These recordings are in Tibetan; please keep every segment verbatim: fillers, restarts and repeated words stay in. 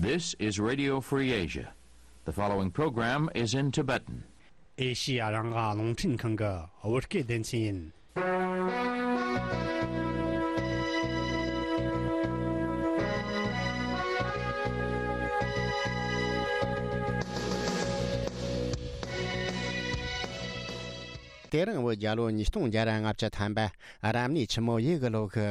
This is Radio Free Asia. The following program is in Tibetan. ཨེ་ཤི་ཡ་རང་དབང་རླུང་འཕྲིན་ཁང་གི་བོད་སྐད་སྡེ་ཚན་ཡིན། དེ་རིང་བོད་རྒྱལ་ལོ་ཉིས་སྟོང་བརྒྱ་ར་ལྔ་བཅུ་ཐམ་པ་རབ་གནས་ཆུ་མོ་ཡོས་གི་ལོ་གི་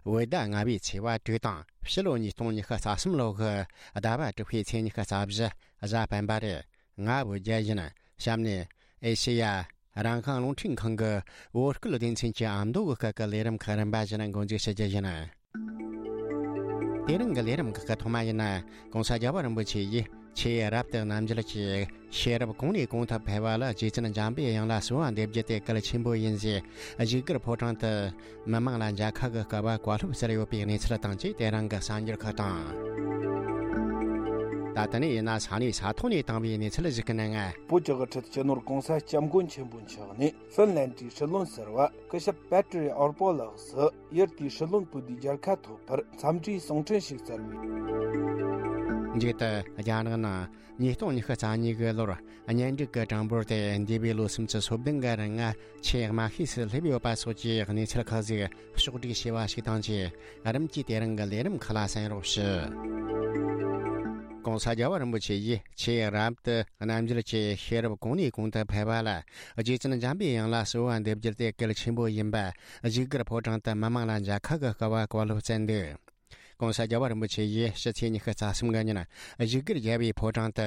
བོད་ཟླ་ལྔ་པའི་ཚེས་པ་དྲུག་དང་ཕྱི་ལོ་ཉིས་སྟོང་ཉི་ཤུ་རྩ་གསུམ་ལོ་གི་ཟླ་བ་དྲུག་པའི་ཚེས་ཉི་ཤུ་རྩ་བཞི་གཟའ་སྤེན་པ་རེད། ང་བོད་རྒྱལ་ཡིན། གཤམ་ནས་ཨེ་ཤེ་ཡ་རང་དབང་རླུང་འཕྲིན་ཁང་གི་བོད་སྐད་སྡེ་ཚན་གྱི་ཨ་མདོ་གི་སྐད་ཀྱི་ལས་རིམ་ཁག་རིམ་པ་བཞིན་འགོ་འཛུགས་བྱེད་རྒྱུ་ཡིན། དེ་རིང་གི་ལས་རིམ་ཁག་གི་ཐོག་མ་ཡིན་ན། ྋགོང་ས་རྒྱལ་བ་རིན་པོ་ཆེ་ཡིས་ཆོས་རབ་ཏུ་རྣམ་འབྱེད་ཀྱི་ཤེས་རབ་གོང་ནས་གོང་དུ་འཕེལ་བ་ལ་རྗེ་བཙུན་འཇམ་པའི་དབྱངས་ལ་གསོལ་བ་འདེབས་རྒྱུ་དེ་གལ་ཆེན་པོ་ཡིན་ཞེས་བཞུགས་སྒར་ཕོ་བྲང་དུ་མི་མང་ལ་མཇལ་ཁ་གི་སྐལ་བ་བཀའ་སློབ་སྩལ་ཡོད་པའི་གནས་ཚུལ་དང་བཅས་དེ་རིང་གི་གསར་འགྱུར་ཁག་དང་། ད་ལྟ་ནས་ཡིན་ན་ས་གནས་ས་ཐོག་ནས་བཏང་བའི་གནས་ཚུལ་ཞིག་གི་ནང་། བོད་ཀྱི་དབུ་ཁྲིད་སྤྱི་ནོར་ྋགོང་ས་ྋསྐྱབས་མགོན་ཆེན་པོ་མཆོག་ནས་ཧྥིན་ལན་ཌིའི་སྲིད་བློན་ཟུར་པ་སྐུ་ཞབས་པེ་ཏྲི་ཨོར་པོ་ལགས་སུ་ཡུལ་དེའི་སྲིད་བློན་པོ་ཏི་མཇལ་ཁ་ཐོབ་པར་འཚམས་འདྲིའི་གསུང་འཕྲིན་ཞིག་སྩལ་བས། མཇུག་ཏུ་རྒྱ་ནག་ནང་ཉིས་སྟོང་ཉི་ཤུ་རྩ་གཉིས་ཀྱི་ལོར་གཉེན་སྒྲིག་གི་གྲངས་འབོར་དེ་འདས་པའི་ལོ་སུམ་ཅུ་སོ་བདུན་གི་རིང་ཆེས་དམའ་ཤོས་སུ་སླེབས་ཡོད་པ་སོགས་ཀྱི་གནས་ཚུལ་ཁག་ཟིག་ཕྱོགས་སྒྲིག་བྱས་པ་ཞིག་དང་བཅས། རིམ་གྱིས་དེ་རིང་གི་ལས་རིམ་ཁག་ལ་གསན་རོགས་ཞུ། ྋགོང་ས་རྒྱལ་བ་རིན་པོ་ཆེ་ཡིས་ཆོས་རབ་ཏུ་རྣམ་འབྱེད་ཀྱི་ཤེས་རབ་གོང་ནས་གོང་དུ་འཕེལ་བ་ལ་རྗེ་བཙུན་འཇམ་པའི་དབྱངས་ལ་གསོལ་བ་འདེབས་རྒྱུ་དེ་གལ་ཆེན་པོ་ཡིན་པ་བཞུགས་སྒར་ཕོ་བྲང་དུ་མི་མང་ལ་མཇལ་ཁ་གི་སྐལ་བ་བཀའ་སློབ་སྩལ་འདུག ྋགོང་ས་རྒྱལ་བ་རིན་པོ་ཆེ་ཡིས་ཕྱི་ཚེས་ཉི་ཤུ་རྩ་གསུམ་གི་ཉིན་བཞུགས་སྒར་རྒྱལ་བའི་ཕོ་བྲང་དུ་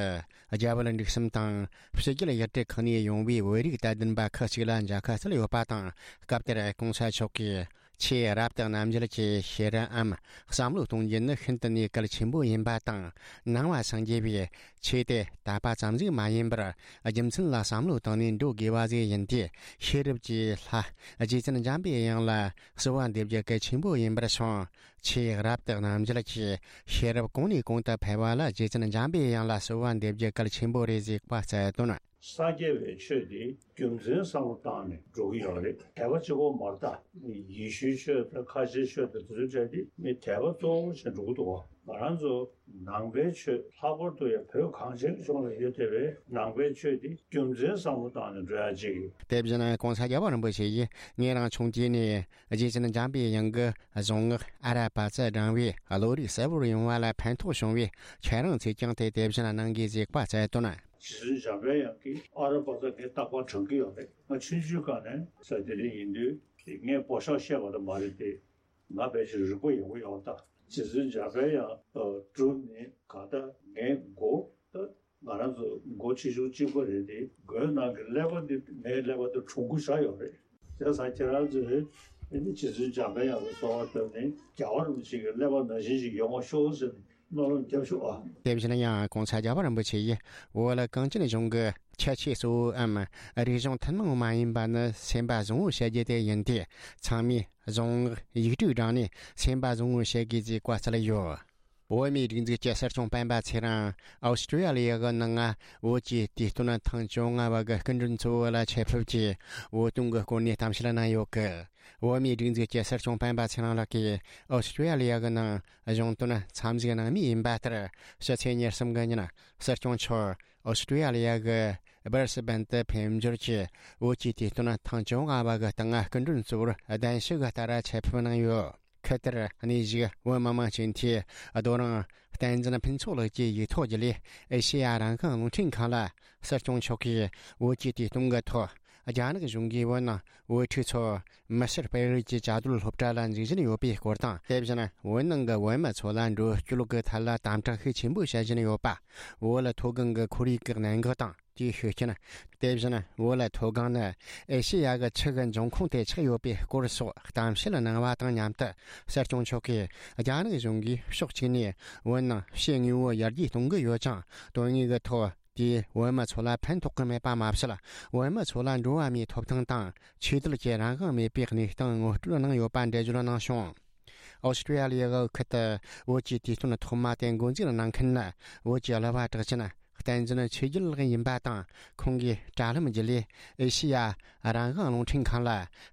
རྒྱ་བལ་འབྲུག་གསུམ་དང་ཕྱི་རྒྱལ་ཡུལ་གྲུ་ཁག་ནས་ཡོང་བའི་བོད་རིགས་དད་ལྡན་པ་ཁག་ཅིག་ལ་མཇལ་ཁ་སྩལ་ཡོད་པ་དང་། སྐབས་དེར་ྋགོང་ས་མཆོག་གིས་ཆོས་རབ་ཏུ་རྣམ་འབྱེད་ཀྱི་ཤེས་རབ་འམ་བསམ་བློ་གཏོང་རྒྱུ་ནི་ཤིན་ཏུ་ནས་གལ་ཆེན་པོ་ཡིན་པ་དང་། ནང་པ་སངས་རྒྱས་པའི་ཆོས་དེ་དད་པ་ཙམ་ཞིག་མ་ཡིན་པར་རྒྱུ་མཚན་ལ་བསམ་བློ་བཏང་ནས་འགྲོ་དགོས་པ་ཞིག་ཡིན་ཏེ། ཤེས་རབ་ཀྱི་ལྷ་རྗེ་བཙུན་འཇམ་པའི་དབྱངས་ལ་གསོལ་བ་འདེབས་རྒྱུ་གལ་ཆེན་པོ་ཡིན་པར་བྱུང་། ཆོས་རབ་ཏུ་རྣམ་འབྱེད་ཀྱི་ཤེས་རབ་གོང་ནས་གོང་དུ་འཕེལ་བ་ལ་རྗེ་བཙུན་འཇམ་པའི་དབྱངས་ལ་གསོལ་བ་འདེབས་རྒྱུ་གལ་ཆེན་པོ་རེད་ཅེས་བཀའ་སྩལ་དོན། སངས་རྒྱས་པའི་ཆོས་འདི་རྒྱུ་མཚན་བསམ་བློ་བཏང་ནས་འགྲོ་གི་ཡོད་རེད། དད་པ་གཅིག་པོ་མ་རེད་ད། ཡེ་ཤུའི་ཆོས་དང་ཁ་ཆེའི་ཆོས་དང་དེ་ཚོའི་གྲས་འདི་མི་དད་པ་གཙོ་བོ་བྱས་འགྲོ་གི་འདུག་ང་རང་ཚོ་ནང་པའི་ཆོས་ལྷག་པར་དུ་ཡང་བོད་གངས་ཅན་གྱི་ལྗོངས་ལ་ཡོད་བསྡད་པའི་ནང་པའི་ཆོས་འདི་རྒྱུ་མཚན་བསམ་བློ་བཏང་ནས་འགྲོ་ཡ་གཅིག་ཡོད། དེ་བཞིན་ྋགོང་ས་རྒྱལ་བ་རིན་པོ་ཆེ་ཡིས་ངེད་རང་ཆུང་དུས་ནས་རྗེ་བཙུན་འཇམ་པའི་དབྱངས་ཀྱི་གཟུངས་སྔགས་ཨ་ར་པ་ཙ་བགྲངས་པས་བློ་རིག་གསལ་བོར་ཡོང་བ་ལ་ཕན་ཐོགས་བྱུང་བས། ཁྱེད་རང་ཚོས་ཀྱང་དེ་དེ་བཞིན་གནང་དགོས་ཞེས་བཀའ་སྩལ་དོན། རྗེ་བཙུན་འཇམ་པའི་དབྱངས་ཀྱིས་ཨ་ར་པ་ཙ་ངས་རྟག་པར་བགྲང་གི་ཡོད་རེད། ང་ཆུང་ཆུང་སྒང་ནས་ས་དེ་རིང་ཡིན་དུས་ངས་པོ་ཤག་བཤད་པ་དང་མ་རེད་དེ། ང་ཕལ་ཆེར་རིག་པ་ཡོད་པོ་ཡོད་ད། རྗེ་བཙུན་འཇམ་པའི་དབྱངས་སྒྲུབ་ནས་གང་ལྟར་ངའི་མགོ་ད་ང་རང་ཚོ་མགོ་ཆེ་ཆུང་གཅིག་པ་རེད་དེ། མགོའི་ནང་གི་ཀླད་པ་འདི་ངའི་ཀླད་པ་འདི་གྲུང་པོ་ཆགས་ཡོད་རེད། བྱས་ཙང་ཁྱེད་རང་ཚོས་ཨ་ནི་རྗེ་བཙུན་འཇམ་པའི་དབྱངས་ལ་གསོལ་བ་བཏབ་ནས་རྒྱལ་བ་རིན་པོ་ཆེ་གི་ཀླད་པ་ནང་བཞིན་ཞིག་ཡོང་བ་ཤོག་ཟེར་ནས་མནོ་བསམ་བརྒྱབ་ཤོག་ཨ། དེ་བཞིན་ཡང་ྋགོང་ས་རྒྱལ་བ་རིན་པོ་ཆེ་ཡིས་བོད་གངས་ཅན་ལྗོངས་ཀྱི་ཁྱད་ཆོས་གཙོ་བོ་འམ་རིག་གཞུང་ཐུན་མོང་མ་ཡིན་པ་ནི་སེམས་པ་བཟང་བོ་བྱ་རྒྱུ་དེ་ཡིན་ཏེ། ཚང་མས་གཟུངས་སྔགས་ཡིག་དྲུག་བགྲངས་ནས་སེམས་པ་བཟང་བོ་བྱེད་དགོས་ཅེས་བཀའ་སྩལ་ཡོད། བོད་མིའི་སྒྲིག་འཛུགས་ཀྱི་སྲིད་སྐྱོང་སྤེན་པ་ཚེ་རིང་ཨོ་སི་ཀྲི་ཡ་ལི་ཡ་གི་ནང་བོད་ཀྱི་དུས་སྟོན་ཐེངས་བཅོ་ལྔ་བ་གི་སྐུ་མགྲོན་གཙོ་བོ་ལ་ཆེད་ཕེབས་ཀྱིས་བོད་དོན་གྱི་སྐོར་ནས་གཏམ་བཤད་གནང་ཡོད་སྐད། བོད་མིའི་སྒྲིག་འཛུགས་ཀྱི་སྲིད་སྐྱོང་སྤེན་པ་ཚེ་རིང་ལགས་ཀྱིས་ཨོ་སི་ཀྲི་ཡ་ལི་ཡ་གི་ནང་གཞུང་དོན་འཚམས་གཟིགས་གནང་མུས་ཡིན་པ་ལྟར། ཕྱི་ཚེས་ཉེར་གསུམ་གི་ཉིན་སྲིད་སྐྱོང་མཆོག་ཨོ་སི་ཀྲི་ཡ་ལི་ཡ་གི་སྦར་སི་བན་དུ་ཕེབས་འབྱོར་གྱིས་བོད་ཀྱི་དུས་སྟོན་ཐེངས་བཅོ་ལྔ་བ་གི་སྟེང་སྐུ་མགྲོན་གཙོ་བོར་གདན་ཞུ་གི་ལྟར་ཆེད་ཕེབས་གནང་ཡོད། ཁུལ་དེར་གནས་བཞུགས་བོད་མི་མང་སྤྱི་འཐུས་རྡོ་རིང་བསྟན་འཛིན་ཕུན་ཚོགས་ལགས་ཀྱི་ཡིག་ཐོག་བརྒྱུད་ལས་ཨེ་ཤེ་ཡ་རང་དབང་རླུང་འཕྲིན་ཁང་ལ་སྲིད་སྐྱོང་མཆོག་གིས་བོད་ཀྱི་དུས་སྟོན་གྱི་ཐོག་རྒྱ་ནག་གཞུང་གིས་བོད་ནང་བོད་ཕྲུག་ཚོ་མི་སེར་སྤེལ་རེས་ཀྱི་བཅའ་སྡོད་སློབ་གྲྭ་ལ་འཛུལ་བཞིན་ཡོད་པའི་སྐོར་དང་། དེ་བཞིན་བོད་ནང་གི་བོད་མི་ཚོ་ལ་འགྲོ་སྐྱོད་ཀྱི་ཐད་ལ་དམ་དྲག་ཤུགས་ཆེན་པོ་བྱེད་བཞིན་ཡོད་པ། བོད་ལ་མཐོ་སྒང་གི་ཁོར་ཡུག་གི་གནད་འགག་དང་། དེའི་ཤུགས་རྐྱེན། དེ་བཞིན་བོད་ལ་མཐོ་སྒང་ནི་ཨེ་ཤེ་ཡ་གི་ཆུ་གི་འབྱུང་ཁུངས་དེ་ཆགས་ཡོད་པའི་སྐོར་སོགས་གཏམ་བཤད་གནང་བ་དང་མཉམ་དུ། སྲིད་སྐྱོང་མཆོག་གིས་རྒྱ་ནག་གཞུང་གིས་ཕྱོགས་གཅིག་ནས་བོད་ནང་ཕྱི་དངོས་པོ་ཡར་རྒྱས་གཏོང་གི་ཡོད་ཀྱང་། དོན་དངོས་ཀྱི་ཐོག་དེས་བོད་མི་ཚོ་ལ་ཕན་ཐོགས་ཀྱི་མེད་པ་མ་ཟད། བོད་མི་ཚོ་ལ་འགྲོ་བ་མིའི་ཐོབ་ཐང་དང་ཆོས་དད་ཀྱི་རང་དབང་མེད་པའི་གནས་སྟངས་ངོ་སྤྲོད་གནང་ཡོད་པ་འགྲེལ་བརྗོད་གནང་བྱུང་། ཨོ་སི་ཀྲི་ཡ་ལི་ཡ་གི་ཁུལ་དུ་བོད་ཀྱི་དུས་སྟོན་ཐོག་མ་དེ་འགོ་འཛུགས་གནང་མཁན་ནི་བོད་ཀྱི་གླུ་བ་གྲགས་ཅན་བསྟན་འཛིན་ཆོས་རྒྱལ་ལགས་ཡིན་པ་དང་། ཁོང་གིས་དྲ་ལམ་བརྒྱུད་ལས་ཨེ་ཤེ་ཡ་རང་དབང་རླུང་འཕྲིན་ཁང་ལ་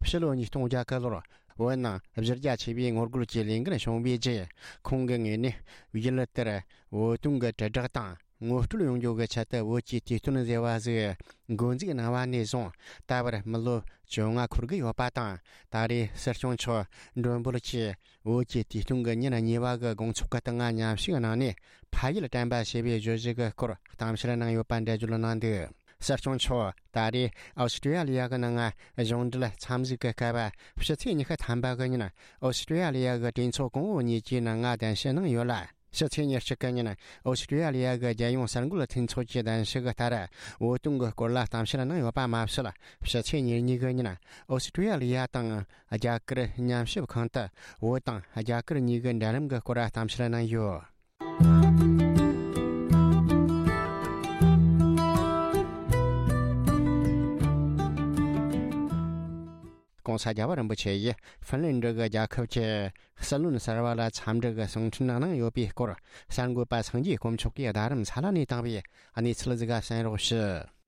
ཕྱི་ལོ་ཉིས་སྟོང་བརྒྱད་གི་ལོར་ བོད་ནང་གཞི་རྒྱ་ཆེ་བའི་ངོ་རྒོལ་གྱི་ལས་འགུལ་བྱུང་བའི་རྗེས། ཁོང་གི་ངོས་ནས་ཡུལ་དེར་བོད་དོན་གྱི་དྲིལ་བསྒྲགས་དང་ངོ་སྤྲོད་ཡོང་རྒྱུ་གི་ཆེད་དུ་བོད་ཀྱི་དུས་སྟོན་ཟེར་བ་ཟིག་འགོ་འཛུགས་གནང་བ་ནས་བཟུང་ད་བར་མི་ལོ་བཅོ་ལྔ་འཁོར་གྱི་ཡོད་པ་དང་། ད་རེས་སྲིད་སྐྱོང་མཆོག་མགྲོན་འབོད་ཀྱིས་བོད་ཀྱི་དུས་སྟོན་གྱི་ཉིན་གཉིས་པ་གི་དགོང་ཚོགས་ཀྱི་སྟེང་མཉམ་ཞུགས་གནང་ནས། ཕ་ཡུལ་དྲན་པ་ཞེས་པའི་བརྗོད་གཞི་གི་སྐོར་གཏམ་བཤད་གནང་ཡོད་པ་འགྲེལ་བརྗོད་གནང་འདུག་སྲིད་སྐྱོང་མཆོག་ད་རེས་ཨོ་སི་ཀྲི་ཡ་ལི་ཡ་གི་ནང་གཞུང་འབྲེལ་འཚམས་གཟིགས་ཀྱི་སྐབས། ཕྱི་ཚེས་ཉི་ཤུ་ཐམ་པ་གི་ཉིན་ཨོ་སི་ཀྲི་ཡ་ལི་ཡ་གི་གྲོས་ཚོགས་གོང་འོག་གཉིས་ཀྱི་ནང་གདན་ཞུ་གནང་ཡོད་ལ། ཕྱི་ཚེས་ཉེར་གཅིག་གི་ཉིན་ཨོ་སི་ཀྲི་ཡ་ལི་ཡ་གི་རྒྱལ་ཡོངས་གསར་འགོད་མཐུན་ཚོགས་ཀྱི་གདན་ཞུ་གི་ལྟར། བོད་དོན་གྱི་སྐོར་ལ་གཏམ་བཤད་གནང་ཡོད་པ་མ་ཟད། ཕྱི་ཚེས་ཉེར་གཉིས་གི་ཉིན་ཨོ་སི་ཀྲི་ཡ་ལི་ཡ་དང་རྒྱ་གར་མཉམ་ཞུགས་ཁང་དུ་བོད་དང་རྒྱ་གར་གཉིས་ཀྱི་འབྲེལ་ལམ་གྱི་སྐོར་གཏམ་བཤད་གནང་ཡོད། ྋགོང་ས་རྒྱལ་བ་རིན་པོ་ཆེ་ཡིས་ཧྥིན་ལན་ཌི་གི་རྒྱལ་ཁབ་ཀྱི་སྲིད་བློན་གསར་བ་ལ་འཚམས་འདྲི་གི་གསུང་འཕྲིན་གནང་ཡོད་པའི་སྐོར། གསར་འགོད་པ་སངས་རྒྱས་དཀོན་མཆོག་གིས་རྡ་རམ་ས་ལ་ནས་བཏང་བའི་གནས་ཚུལ་ཟིག་གསན་རོགས་ཞུ།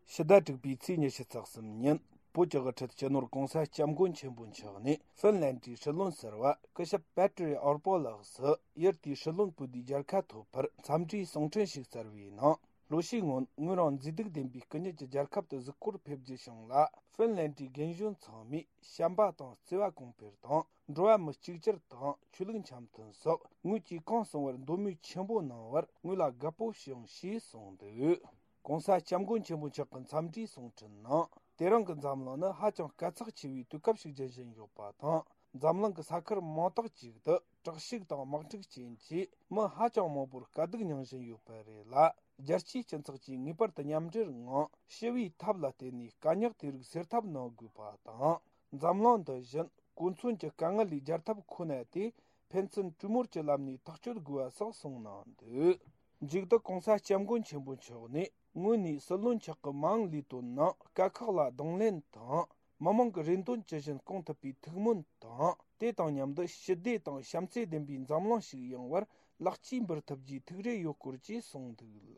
ཕྱི་ཟླ་དྲུག་པའི་ཚེས་ཉི་ཤུ་རྩ་གསུམ་ཉིན། བོད་ཀྱི་དབུ་ཁྲིད་སྤྱི་ནོར་༧གོང་ས་༧སྐྱབས་མགོན་ཆེན་པོ་མཆོག་ནས་ཧྥིན་ལན་ཌིའི་སྲིད་བློན་ཟུར་པ་སྐུ་ཞབས་པེ་ཏྲི་ཨོར་པོ་ལགས་སུ་ཡུལ་དེའི་སྲིད་བློན་པོ་དེའི་མཇལ་ཁ་ཐོབ་པར་འཚམས་འདྲིའི་གསུང་འཕྲིན་ཞིག་སྩལ་བའི་ནང་། ལོ་ཤས་སྔོན་ངོས་རང་མཛེས་སྡུག་ལྡན་པའི་སྐུ་ཉིད་ཀྱི་རྒྱལ་ཁབ་ཏུ་གཟིགས་སྐོར་ཕེབས་རྒྱུ་བྱུང་ལ། ཧྥིན་ལན་ཌིའི་རྒན་གཞོན་ཚང་མས་བྱམས་པ་དང་བརྩེ་བ་གོང་འཕེལ་དང་། འགྲོ་བ་མི་གཅིག་གྱུར་དང་ཆོས་ལུགས་འཆམ་མཐུན་སོགས་ངོས་ཀྱིས་གང་གསུང་བར་མདོ་སྨོས་ཆེན་པོ་གནང་བར་ངོས་ལ་དགའ་པོ་བྱུང་ཞེས་གསུངས་འདུག ྋགོང་ས་ྋསྐྱབས་མགོན་ཆེན་པོ་མཆོག་གི་འཚམས་འདྲིའི་གསུང་འཕྲིན་ནང་། དེ་རིང་གི་འཛམ་གླིང་ནི་ཧ་ཅང་དཀའ་ཚེགས་ཆེ་བའི་དུས་སྐབས་ཤིག་འགྱུར་བཞིན་ཡོད་པ་དང་། འཛམ་གླིང་གི་ས་ཁུལ་མང་དག་ཅིག་ཏུ་དྲག་ཤུགས་དང་དམག་འཁྲུག་རྐྱེན་གྱིས་མི་ཧ་ཅང་མང་པོར་དཀའ་སྡུག་མྱངས་བཞིན་ཡོད་པ་རེད་ལ། རྒྱལ་སྤྱིའི་སྤྱི་ཚོགས་ཀྱིས་ངེས་པར་དུ་མཉམ་འབྲེལ་ངང་ཞི་བའི་ཐབས་ལ་བརྟེན་ནས་དཀའ་རྙོག་དེ་རིགས་སེལ་ཐབས་གནང་དགོས་པ་དང་། འཛམ་གླིང་འདི་བཞིན་གོ་མཚོན་གྱི་དཀའ་ངལ་ལས་རྒྱལ་ཐབས་ཁོ་ན་སྟེ། ཕན་ཚུན་གྲོས་མོལ་གྱི་ལམ་ནས་ཐག་གཅོད་དགོས་པ་སོགས་གསུངས་གནང་འདུག་མཇུག་ཏུ་ྋགོང་ས་ྋསྐྱབས་མགོན་ཆེན་པོ་མཆོག་ནས་ངོས་ནས་སྲིད་བློན་མཆོག་གི་མ་འོངས་ལས་དོན་ནང་དཀའ་ཁག་ལ་གདོང་ལེན་དང་། མི་མང་གི་རེ་འདུན་ཇི་བཞིན་སྐོང་ཐུབ་པའི་ཐུགས་སྨོན་དང་། དེ་དང་མཉམ་དུ་ཞི་བདེ་དང་བྱམས་བརྩེ་ལྡན་པའི་འཛམ་གླིང་ཞིག་ཡོང་བར་ལེགས་སྐྱེས་འབུལ་ཐུབ་རྒྱུའི་ཐུགས་རེ་ཡོད་སྐོར་བཅས་གསུངས་འདུག་ལ།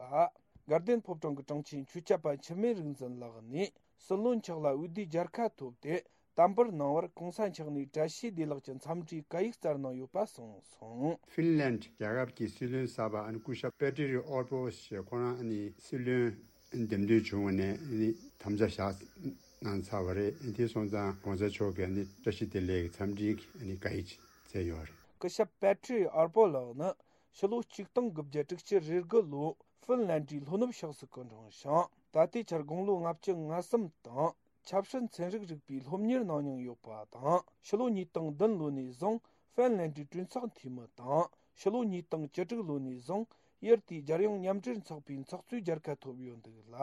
དགའ་ལྡན་ཕོ་བྲང་གི་དྲུང་ཆེ་ཆོས་སྐྱབས་པ་འཆི་མེད་རིག་འཛིན་ལགས་ནས་སྲིད་བློན་མཆོག་ལ་འོས་བསྡུའི་མཇལ་ཁ་ཐོབ་སྟེ། དམ་པར་གནང་བར་གོང་ས་མཆོག་ནས་བཀྲ་ཤིས་བདེ་ལེགས་ཀྱི་འཚམས་འདྲིའི་བཀའ་ཡིག་སྩལ་གནང་ཡོད་པ་གསུངས་སོང་། ཧྥིན་ལན་རྒྱལ་ཁབ་ཀྱི་སྲིད་བློན་གསར་པ་ཨ་ནི་སྐུ་ཞབས་པེ་ཏྲི་རི་ཨོར་པོ་ཞེས་ཁོ་རང་ཨ་ནི་སྲིད་བློན་འདེམས་ཐོན་བྱུང་བ་ནས་ཨ་ནི་དམ་བཅའ་བཞག་གནང་ཚར་བ་རེད། དེ་སོང་ཙང་གོང་ས་མཆོག་གིས་ཨ་ནི་བཀྲ་ཤིས་བདེ་ལེགས་ཀྱི་འཚམས་འདྲིའི་ཨ་ནི་བཀའ་ཡིག་ཅིག་སྩལ་ཡོད་རེད། སྐུ་ཞབས་པེ་ཏྲི་རི་ཨོར་པོ་ལགས་ནི་ཕྱི་ལོ་ཆིག་སྟོང་དགུ་བརྒྱ་དྲུག་ཅུ་རེ་དགུ་ལོ་ཧྥིན་ལན་ཌིའི་ལྷོ་ནུབ་ཕྱོགས་སུ་སྐུ་འཁྲུངས་ཤིང་། ད་ལྟའི་ཆར་དགུང་ལོ་ལྔ་བཅུ་ང་གསུམ་དང་། ཆབ་སྲིད་ཚན་རིག་རིག་པའི་སློབ་གཉེར་གནང་མྱོང་ཡོད་པ་དང་། ཕྱི་ལོ་ཉིས་སྟོང་བདུན་ལོ་ནས་བཟུང་ཧྥིན་ལན་ཌིའི་གྲོས་ཚོགས་འཐུས་མི་དང་། ཕྱི་ལོ་ཉིས་སྟོང་བཅུ་དྲུག་ལོ་ནས་བཟུང་ཡུལ་དེའི་རྒྱལ་ཡོངས་མཉམ་འབྲེལ་ཚོགས་པའི་ཚོགས་གཙོའི་མཇལ་ཁ་ཐོབ་ཡོད་འདུག་ལ།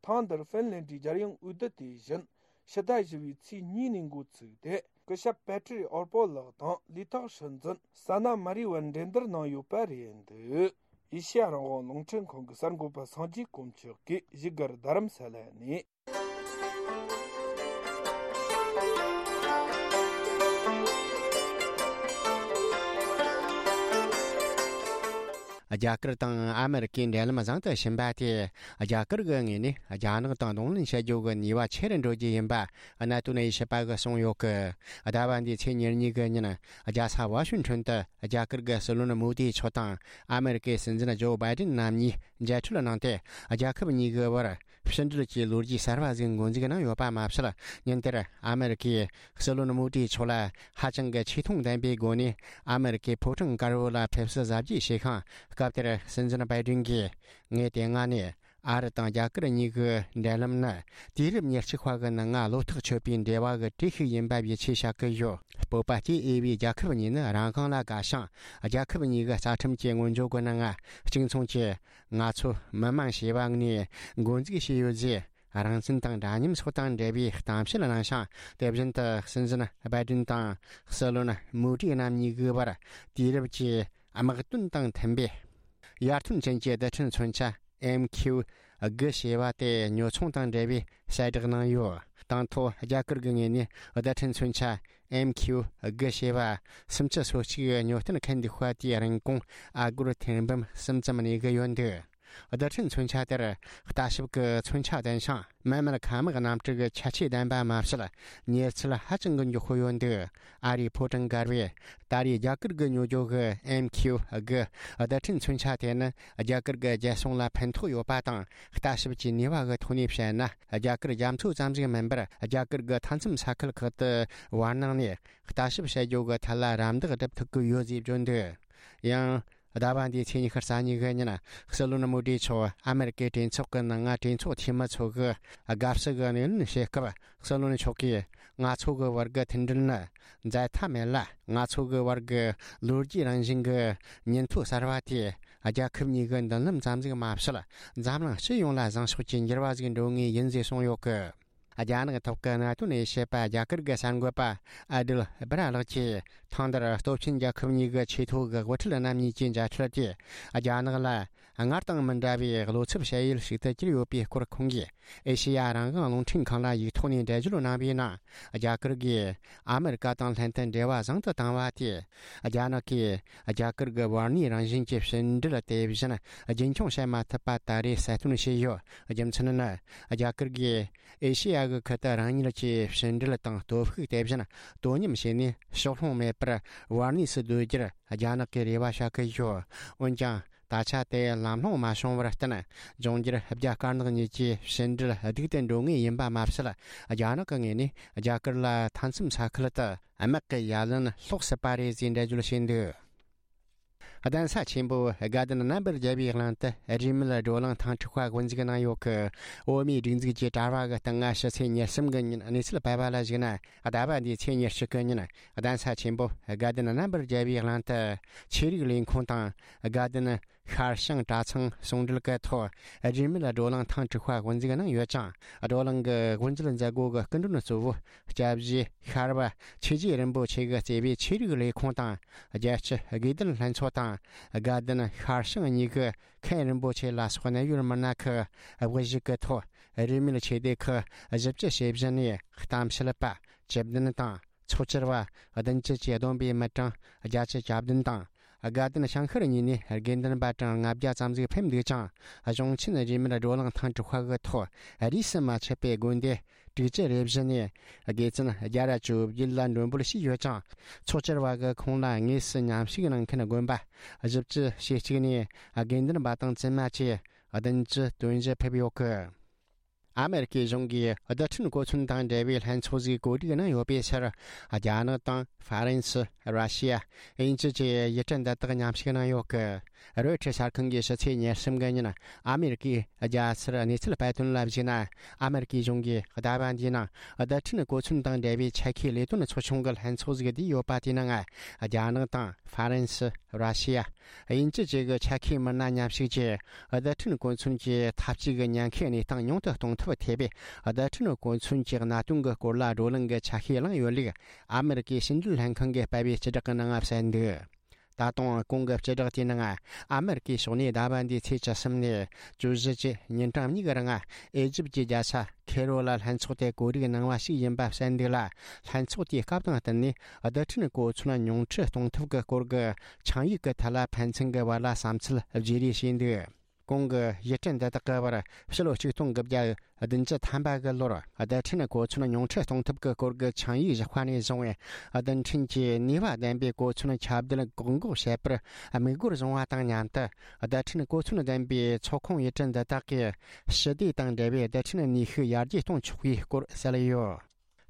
ཐེངས་འདིར་ཧྥིན་ལན་ཌིའི་རྒྱལ་ཡོངས་འོས་བསྡུ་དེ་བཞིན་ཕྱི་ཟླ་བཞི་པའི་ཚེས་གཉིས་ནས་འགོ་ཚུགས་ཏེ། སྐུ་ཞབས་པེ་ཏྲི་རི་ཨོར་པོ་ལགས་དང་ལས་ཐོག་སྲིད་འཛིན་ས་ན་མ་རི་བར་འགྲན་བསྡུར་གནང་ཡོད་པ་རེད་འདུག་ཨེ་ཤེ་ཡ་རང་དབང་རླུང་འཕྲིན་ཁང་གི་གསར་འགོད་པ་སངས་རྒྱས་དཀོན་མཆོག་གིས་བཞུགས་སྒར་རྡ་རམ་ས་ལ་ནས། རྒྱ་གར་དང་ཨ་མེ་རི་ཀའི་འབྲེལ་ལམ་བཟང་དུ་ཕྱིན་པ་དེས་རྒྱ་གར་གྱི་ངོས་ནས་རྒྱ་ནག་དང་གདོང་ལེན་བྱེད་རྒྱུ་གི་ནུས་པ་ཆེ་རུ་འགྲོ་རྒྱུ་ཡིན་པ་གནད་དོན་དབྱེ་ཞིབ་པ་གིས་གསུངས་ཡོད་ཀི། ཟླ་བ་འདིའི་ཚེས་ཉེར་གཉིས་གི་ཉིན་རྒྱལ་ས་ཝ་ཤིང་ཊོན་དུ་རྒྱ་གར་གྱི་སྲིད་བློན་མོ་དི་མཆོག་དང་ཨ་མེ་རི་ཀའི་སྲིད་འཛིན་ཇོ་བྷའི་ཏིན་རྣམ་གཉིས་མཇལ་འཕྲད་གནང་སྟེ། རྒྱལ་ཁབ་གཉིས་ཀྱི་བར་ཕྱི་འབྲེལ་གྱི་ལོ་རྒྱུས་གསར་བ་ཟིག་འགོ་འཛུགས་གནང་ཡོད་པ་མ་ཟད། ཉིན་དེར་ཨ་མེ་རི་ཀས་སྲིད་བློན་མོ་དི་མཆོག་ལ་ཧ་ཅང་གི་ཆེ་མཐོང་ལྡན་པའི་སྒོ་ནས་ཨ་མེ་རི་ཀའི་ཕོ་བྲང་དཀར་པོ་ལ་ཕེབས་བསུ་གཟབ་རྒྱས་བྱས་ཤིང་། སྐབས་དེར་སྲིད་འཛིན་བྷའི་ཏིན་གྱིས། ངས་དེ་སྔ་ནས་ཨ་རི་དང་རྒྱ་གར་གཉིས་ཀྱི་འབྲེལ་ལམ་ནི་དུས་རབས་ཉེར་གཅིག་པ་གི་ནང་ང་བློ་ཐག་ཆོད་པའི་འབྲེལ་བ་གི་གྲས་ཤིག་ཡིན་པ་ཡིད་ཆེས་བྱ་གི་ཡོད། སྤོབས་པ་སྐྱེ་འོས་པའི་རྒྱལ་ཁབ་གཉིས་ནི་རང་དབང་ལ་དགའ་ཞིང་། རྒྱལ་ཁབ་གཉིས་ཀྱི་རྩ་ཁྲིམས་ཀྱི་སྔོན་བརྗོད་གི་ནང་ང་གཅིག་མཚུངས་ཀྱིས། ང་ཚོ་མི་དམངས་ཞེས་པ་ནས་འགོ་འཛུགས་བྱས་ཡོད་ཅེས། རང་བཙན་དང་འདྲ་མཉམ་སོགས་དང་འབྲེལ་བའི་གཏམ་བཤད་གནང་ཞིང་། དེ་བཞིན་དུ་སྲིད་འཛིན་བྷའི་ཏིན་དང་སྲིད་བློན་མོ་ཏི་རྣམ་གཉིས་ཀྱི་བར་དུས་རབས་ཀྱི་དམག་དོན་དང་མཐུན་པའི་ཡར་ཐོན་ཅན་གྱི་རྡུལ་ཕྲན་མཚོན་ཆ་ཨེམ་ཁྱིའུ་དགུ་ཞེས་པ་དེ་ཉོ་ཚོང་དང་འབྲེལ་བའི་གསལ་བསྒྲགས་གནང་ཡོད། དང་ཐོག་རྒྱ་གར་གྱི་ངོས་ནས་རྡུལ་ཕྲན་མཚོན་ཆ་ཨེམ་ཁྱིའུ་དགུ་ཞེས་པ་སུམ་ཅུ་སོ་གཅིག་ཉོ་སྟངས་མཁན་འདུག་པ་དེའི་རིན་གོང་ཨ་སྒོར་ཐེར་འབུམ་གསུམ་ཙམ་གནས་ཀྱི་ཡོད་འདུག་རྡུལ་ཕྲན་མཚོན་ཆ་དེར་ལྟ་ཞིབ་ཀྱི་མཚོན་ཆ་ལྡན་ཞིང་། མི་མེད་མཁའ་དམག་གནམ་གྲུ་གི་ཁྱད་ཆོས་ལྡན་པ་མ་ཟད། མྱུར་ཚད་ཧ་ཅང་གི་མགྱོགས་པོ་ཡོད་འདུག་ཨ་རིའི་ཕོ་བྲང་སྒར་བས་ད་རེས་རྒྱ་གར་གྱི་ཉོ་སྒྱུ་གི་ཨེམ་ཁྱུ་དགུ་རྡུལ་ཕྲན་མཚོན་ཆ་དེ་ནི་རྒྱ་གར་གྱི་རྒྱལ་སྲུང་ལ་ཕན་ཐོགས་ཡོད་པ་དང་། ལྟ་ཞིབ་ཀྱི་ནུས་པ་གི་ཐོག་ནས་བཤད་ན། རྒྱ་གར་རྒྱ་མཚོ་ཙམ་ཞིག་མིན་པར། རྒྱ་གར་གྱི་མཐའ་མཚམས་ས་ཁུལ་ཁག་ཏུ་བར་སྣང་ནས་ལྟ་ཞིབ་བྱ་རྒྱུ་གི་ཐད་ལ་རམ་འདེགས་སྒྲུབ་ཐུབ་ཀྱི་ཡོད་ཅེས་བརྗོད་འདུག་ཡང་། ཟླ་བ་འདིའི་ཚེས་ཉི་ཤུ་རྩ་གཉིས་ཀྱི་ཉིན། སྲིད་བློན་མོ་དི་མཆོག་ཨ་མེ་རི་ཀའི་གྲོས་ཚོགས་ཀྱི་ནང་ང་གྲོས་ཚོགས་འཐུས་མི་ཚོ་གི་དགའ་བསུ་གི་སྣེ་ལེན་བྱེད་སྐབས། སྲིད་བློན་མཆོག་གིས། ང་ཚོ་གི་བར་གྱི་མཐུན་སྒྲིལ་ནི་འཛད་མཐའ་མེད་ལ། ང་ཚོ་གི་བར་གྱི་ལོ་རྒྱུས་རང་བཞིན་གྱི་ཉིན་ཐོ་གསར་བ་དེས། རྒྱལ་ཁབ་གཉིས་ཀྱི་མདུན་ལམ་ཙམ་ཞིག་མ་ཟད། འཛམ་གླིང་སྤྱི་ཡོངས་ལ་བཟང་ཕྱོགས་ཀྱི་འགྱུར་བ་ཞིག་འགྲོ་ངེས་ཡིན་ཞེས་གསུངས་ཡོད་གི། རྒྱ་ནག་ཐོག་གི་གནད་དོན་ཡི་ཞེས་པ་རྒྱ་གར་གྱི་གསར་འགོད་པ་ཨ་དིལ་སྦི་ར་ལགས་ཀྱིས། ཐེངས་འདིར་སྟོབས་ཆེན་རྒྱལ་ཁབ་གཉིས་ཀྱི་ཆེས་མཐོ་གི་དབུ་ཁྲིད་རྣམ་གཉིས་ཀྱི་མཇལ་འཕྲད་དེ། རྒྱ་ནག་ལ་སྔར་དང་མི་འདྲ་བའི་བློ་འཚབ་བྱ་ཡུལ་ཞིག་ཏུ་གྱུར་ཡོད་པའི་སྐོར། ཁོང་གིས་ཨེ་ཤེ་ཡ་རང་དབང་རླུང་འཕྲིན་ཁང་ལ་ཡིག་ཐོག་ནས་འགྲེལ་བརྗོད་གནང་བའི་ནང་། རྒྱ་གར་གྱིས་ཨ་མེ་རི་ཀ་དང་ལྷན་དུ་འབྲེལ་བ་བཟང་དུ་བཏང་བ་དེས། རྒྱ་ནག་གིས་རྒྱ་གར་གྱི་བར་གནས་རང་བཞིན་གྱི་ཕྱི་འབྲེལ་དེ་བཞིན་རྒྱུན་འཁྱོངས་བྱེད་མ་ཐུབ་པ་ད་རེས་གསལ་སྟོན་བྱས་ཡོད། རྒྱུ་མཚན་ནི། རྒྱ་གར་གྱིས་ཨེ་ཤེ་ཡ་གི་ཁུལ་དུ་རང་ཉིད་ཀྱི་ཕྱི་འབྲེལ་དང་སྟོབས་ཤུགས་དེ་བཞིན་དོ་མཉམ་བྱས་ནས་ཕྱོགས་ལྷུང་མེད་པར་བར་གནས་སུ་སྡོད་རྒྱུར་རྒྱ་ནག་གིས་རེ་བ་བྱ་གི་ཡོད། འོན་ཀྱང་། ད་ཆ་དེ་ལམ་ལྷོང་མ་བྱུང་བར་བརྟེན། འབྱུང་འགྱུར་རྒྱ་དཀར་ནག་གཉིས་ཀྱི་ཕྱི་འབྲེལ་སྡུག་ཏུ་འགྲོ་ངེས་ཡིན་པ་མ་ཟད། རྒྱ་ནག་གི་ངོས་ནས་རྒྱ་གར་ལ་མཐའ་མཚམས་ས་ཁུལ་དུ་དམག་གི་ཡ་ལན་སློག་སྲིད་པ་རེད་ཅེས་འགྲེལ་བརྗོད་བྱས་འདུག་གདན་ས་ཆེན་པོ་དགའ་ལྡན་རྣམ་པར་རྒྱལ་བའི་གླིང་དུ་རིས་མེད་བགྲོ་གླེང་ཐེངས་དྲུག་པ་དབུ་འཛུགས་གནང་ཡོད་གི། འོ་མའི་སྒྲིག་འཛུགས་ཀྱི་དྲ་བ་གི་སྟེང་ང་ཕྱི་ཚེས་ཉེར་གསུམ་གི་ཉིན་གནས་ཚུལ་སྤེལ་བ་ལ་གཞིགས་ན། ཟླ་བ་འདིའི་ཚེས་ཉེར་གཅིག་གི་ཉིན་གདན་ས་ཆེན་པོ་དགའ་ལྡན་རྣམ་པར་རྒྱལ་བའི་གླིང་དུ་ཆོས་རིག་ལས་ཁུངས་དང་། དགའ་ལྡན་ཤར་བྱང་གྲྭ་ཚང་ཟུང་འབྲེལ་གྱི་ཐོག་རིས་མེད་བགྲོ་གླེང་ཐེངས་དྲུག་པ་དབུ་འཛུགས་གནང་ཡོད་ཅིང་། བགྲོ་གླེང་གི་དབུ་འབྱེད་མཛད་སྒོ་གི་སྐུ་མགྲོན་གཙོ་བོ་སྐྱབས་རྗེ་ཤར་པ་ཆོས་རྗེ་རིན་པོ་ཆེ་གིས་གཙོས་པའི་ཆོས་རིག་ལས་ཁུངས་དང་། རྒྱལ་སྤྱི་དགེ་ལྡན་ལྷན་ཚོགས་དང་། དགའ་ལྡན་ཤར་བྱང་གཉིས་ཀྱི་མཁན་རིན་པོ་ཆེ་ལ་སོགས་གནད་ཡོད་མི་སྣ་ཁག་དབུ་བཞུགས་ཀྱི་ཐོག་རིས་མེད་ཆོས་སྡེ་ཁག་བཞི་བཅུ་ཞེ་བཞི་ནས་གཏམ་བཤད་པ། བཅུ་བདུན་དང་། ཚོགས་བཅར་བ་བདུན་ཅུ་གྱིས་བསྡོམས་པའི་མི་གྲངས་བརྒྱད་ཅུ་གྱ་བདུན་དང་། དགའ་ལྡན་བྱང་ཤར་གཉིས་ནས་དགེ་འདུན་པ་གྲངས་ལྔ་བརྒྱ་ཙམ་ཞིག་ཕེབས་འདུག་ཅིང་། གཞུང་ཆེན་རིས་མེད་བགྲོ་གླེང་ཐེངས་དྲུག་པ་གི་ཐོག་རིས་སུ་མ་ཆད་པའི་དགོན་སྡེ་དྲུག་ཅུ་རེ་བཞི་ནས་དགེ་བཙུན་བརྒྱ་དང་བཅོ་བརྒྱད་ལ་མགྲོན་འབོད་བྱས་ཡོད་ཅིང་། ཚོགས་བཅར་བ་གི་ཁོངས་ལ་དངོས་སུ་མཉམ་ཞུགས་གནང་མཁན་དགོན་པ་བཞི་བཅུ་ཞེ་གཅིག་ནས་དགེ་འདུན་པ་དང་བཙུན་མ་བཅས་བདུན་ཅུ་དོན་བཞི་ཕེབས་ཡོད་གི། ཨ་མེ་རི་ཀའི་གཞུང་གིས་རྡུལ་ཕྲན་གོ་མཚོན་དང་འབྲེལ་བའི་ལྷན་ཚོགས་ཤིག་གོ་སྒྲིག་གནང་ཡོད་པའི་ཕྱིར། རྒྱ་ནག་དང་ཧྥ་རན་སི། ར་ཤི་ཡ། དབྱིན་ཇི་བཅས་ཡུལ་གྲུ་འདི་དག་མཉམ་ཞུགས་གནང་ཡོད་གི། རོའི་ཊར་གསར་ཁང་གིས་ཕྱི་ཚེས་ཉེར་གསུམ་གི་ཉིན་ཨ་མེ་རི་ཀའི་རྒྱལ་སར་གནས་ཚུལ་སྤེལ་དོན་ལ་གཞིགས་ན། ཨ་མེ་རི་ཀའི་གཞུང་གིས་ཟླ་བ་འདིའི་ནང་རྡུལ་ཕྲན་གོ་མཚོན་དང་འབྲེལ་བའི་ཆེད་མཁས་ལས་དོན་ཚོགས་ཆུང་གི་ལྷན་ཚོགས་ཤིག་བསྡུས་ཡོད་པ་དེའི་ནང་རྒྱ་ནག་དང་ཧྥ་རན་སི། ར་ཤི་ཡ། དབྱིན་ཇི་བཅས་ཀྱི་ཆེད་མཁས་མི་སྣ་མཉམ་ཞུགས་ཀྱིས་རྡུལ་ཕྲན་གོ་མཚོན་གྱི་འཐབ་ཇུས་ཀྱི་ཉེན་ཁའི་གནས་སྟངས་ཉུང་དུ་གཏོང་ཐབས་ཐེ་བའི་རྡུལ་ཕྲན་གོ་མཚོན་གྱི་གནད་དོན་གྱི་སྐོར་ལ་བགྲོ་གླེང་གི་ཆ་ཤས་བླངས་ཡོད་ལུགས་ཨ་མེ་རི་ཀའི་ཕྱི་འབྲེལ་ལྷན་ཁང་གིས་སྤེལ་བའི་སྤྱི་བསྒྲགས་ཀྱི་ནང་གསལ་འདུག་ད་དུང་གོང་གི་སྤྱི་བསྒྲགས་དེའི་ནང་ཨ་མེ་རི་ཀའི་ཕྱོགས་ནས་ཟླ་བ་འདིའི་ཚེས་བཅུ་གསུམ་ནས་བཅུ་བཞི་བཅས་ཉིན་གྲངས་གཉིས་ཀྱི་རིང་ཨེ་ཇིབ་ཀྱི་རྒྱལ་ས་ཁེ་རོ་ལ་ལྷན་ཚོགས་དེ་གོ་སྒྲིག་གནང་བ་ཞིག་ཡིན་པ་གསལ་འདུག་ལ། ལྷན་ཚོགས་དེའི་སྐབས་དང་བསྟུན་ནས་རྡུལ་ཕྲན་གོ་མཚོན་ཉུང་འཕྲི་གཏོང་ཐབས་ཀྱི་སྐོར་གྱི་ཆིངས་ཡིག་གི་ཐད་ལ་ཕན་ཚུན་གྱི་བར་ལ་བསམ་ཚུལ་བརྗེ་རེས་བྱས་འདུག་གོང་གི་ཡུལ་གྲུ་འདི་དག་གི་བར་ཕྱི་ལོ་ཆིག་སྟོང་དགུ་བརྒྱ་བདུན་ཅུ་ཐམ་པ་གི་ལོར་རྡུལ་ཕྲན་གོ་མཚོན་ཉུང་འཕྲི་གཏོང་ཐབས་ཀྱི་སྐོར་གྱི་ཆིངས་ཡིག་བཞག་པ་ནས་བཟུང་བའི་རྡུལ་ཕྲན་གྱི་ནུས་པ་ལྡན་པའི་གོ་མཚོན་ཁྱབ་གདལ་བཀག་འགོག་བྱེད་པར་དམིགས་སྒོར་བཟུང་བ་དང་མཉམ་དུ། རྡུལ་ཕྲན་གོ་མཚོན་ལྡན་པའི་ཚོགས་ཁོངས་ཡུལ་གྲུ་འདི་དག་གིས་ཞི་བདེ་དང་འབྲེལ་བའི་རྡུལ་ཕྲན་ནུས་ཤུགས་ཡར་རྒྱས་གཏོང་ཆོག་པའི་སྐོར་གསལ་ཡོད།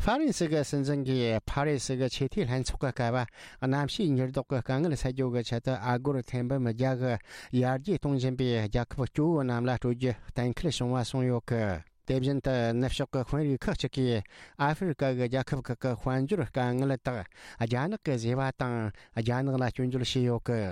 ཧྥ་རན་སི་གི་སྲིད་འཛིན་གྱིས་ཕ་རི་སི་གི་ཆེས་མཐོའི་ལྷན་ཚོགས་ཀྱི་སྐབས། གནམ་གཤིས་འགྱུར་ལྡོག་གི་དཀའ་ངལ་སེལ་རྒྱུ་གི་ཆེད་དུ་ཨ་སྒོར་ཐེར་འབུམ་བརྒྱ་གི་ཡར་རྒྱས་གཏོང་བཞིན་པའི་རྒྱལ་ཁབ་སྐྱོ་བོ་རྣམས་ལ་སྤྲོད་རྒྱུ་གཏན་འཁེལ་བྱུང་བ་གསུངས་ཡོད་གི། དེ་བཞིན་དུ་ནུབ་ཕྱོགས་ཀྱི་དཔོན་རིགས་ཁག་ཅིག་གིས་ཨ་ཧྥེ་རི་ཀ་གི་རྒྱལ་ཁབ་ཁག་གི་དཔལ་འབྱོར་དཀའ་ངལ་དག་རྒྱ་ནག་གིས་བཟོས་པ་དང་། རྒྱ་ནག་ལ་སྐྱོན་བརྗོད་བྱས་ཡོད་གི།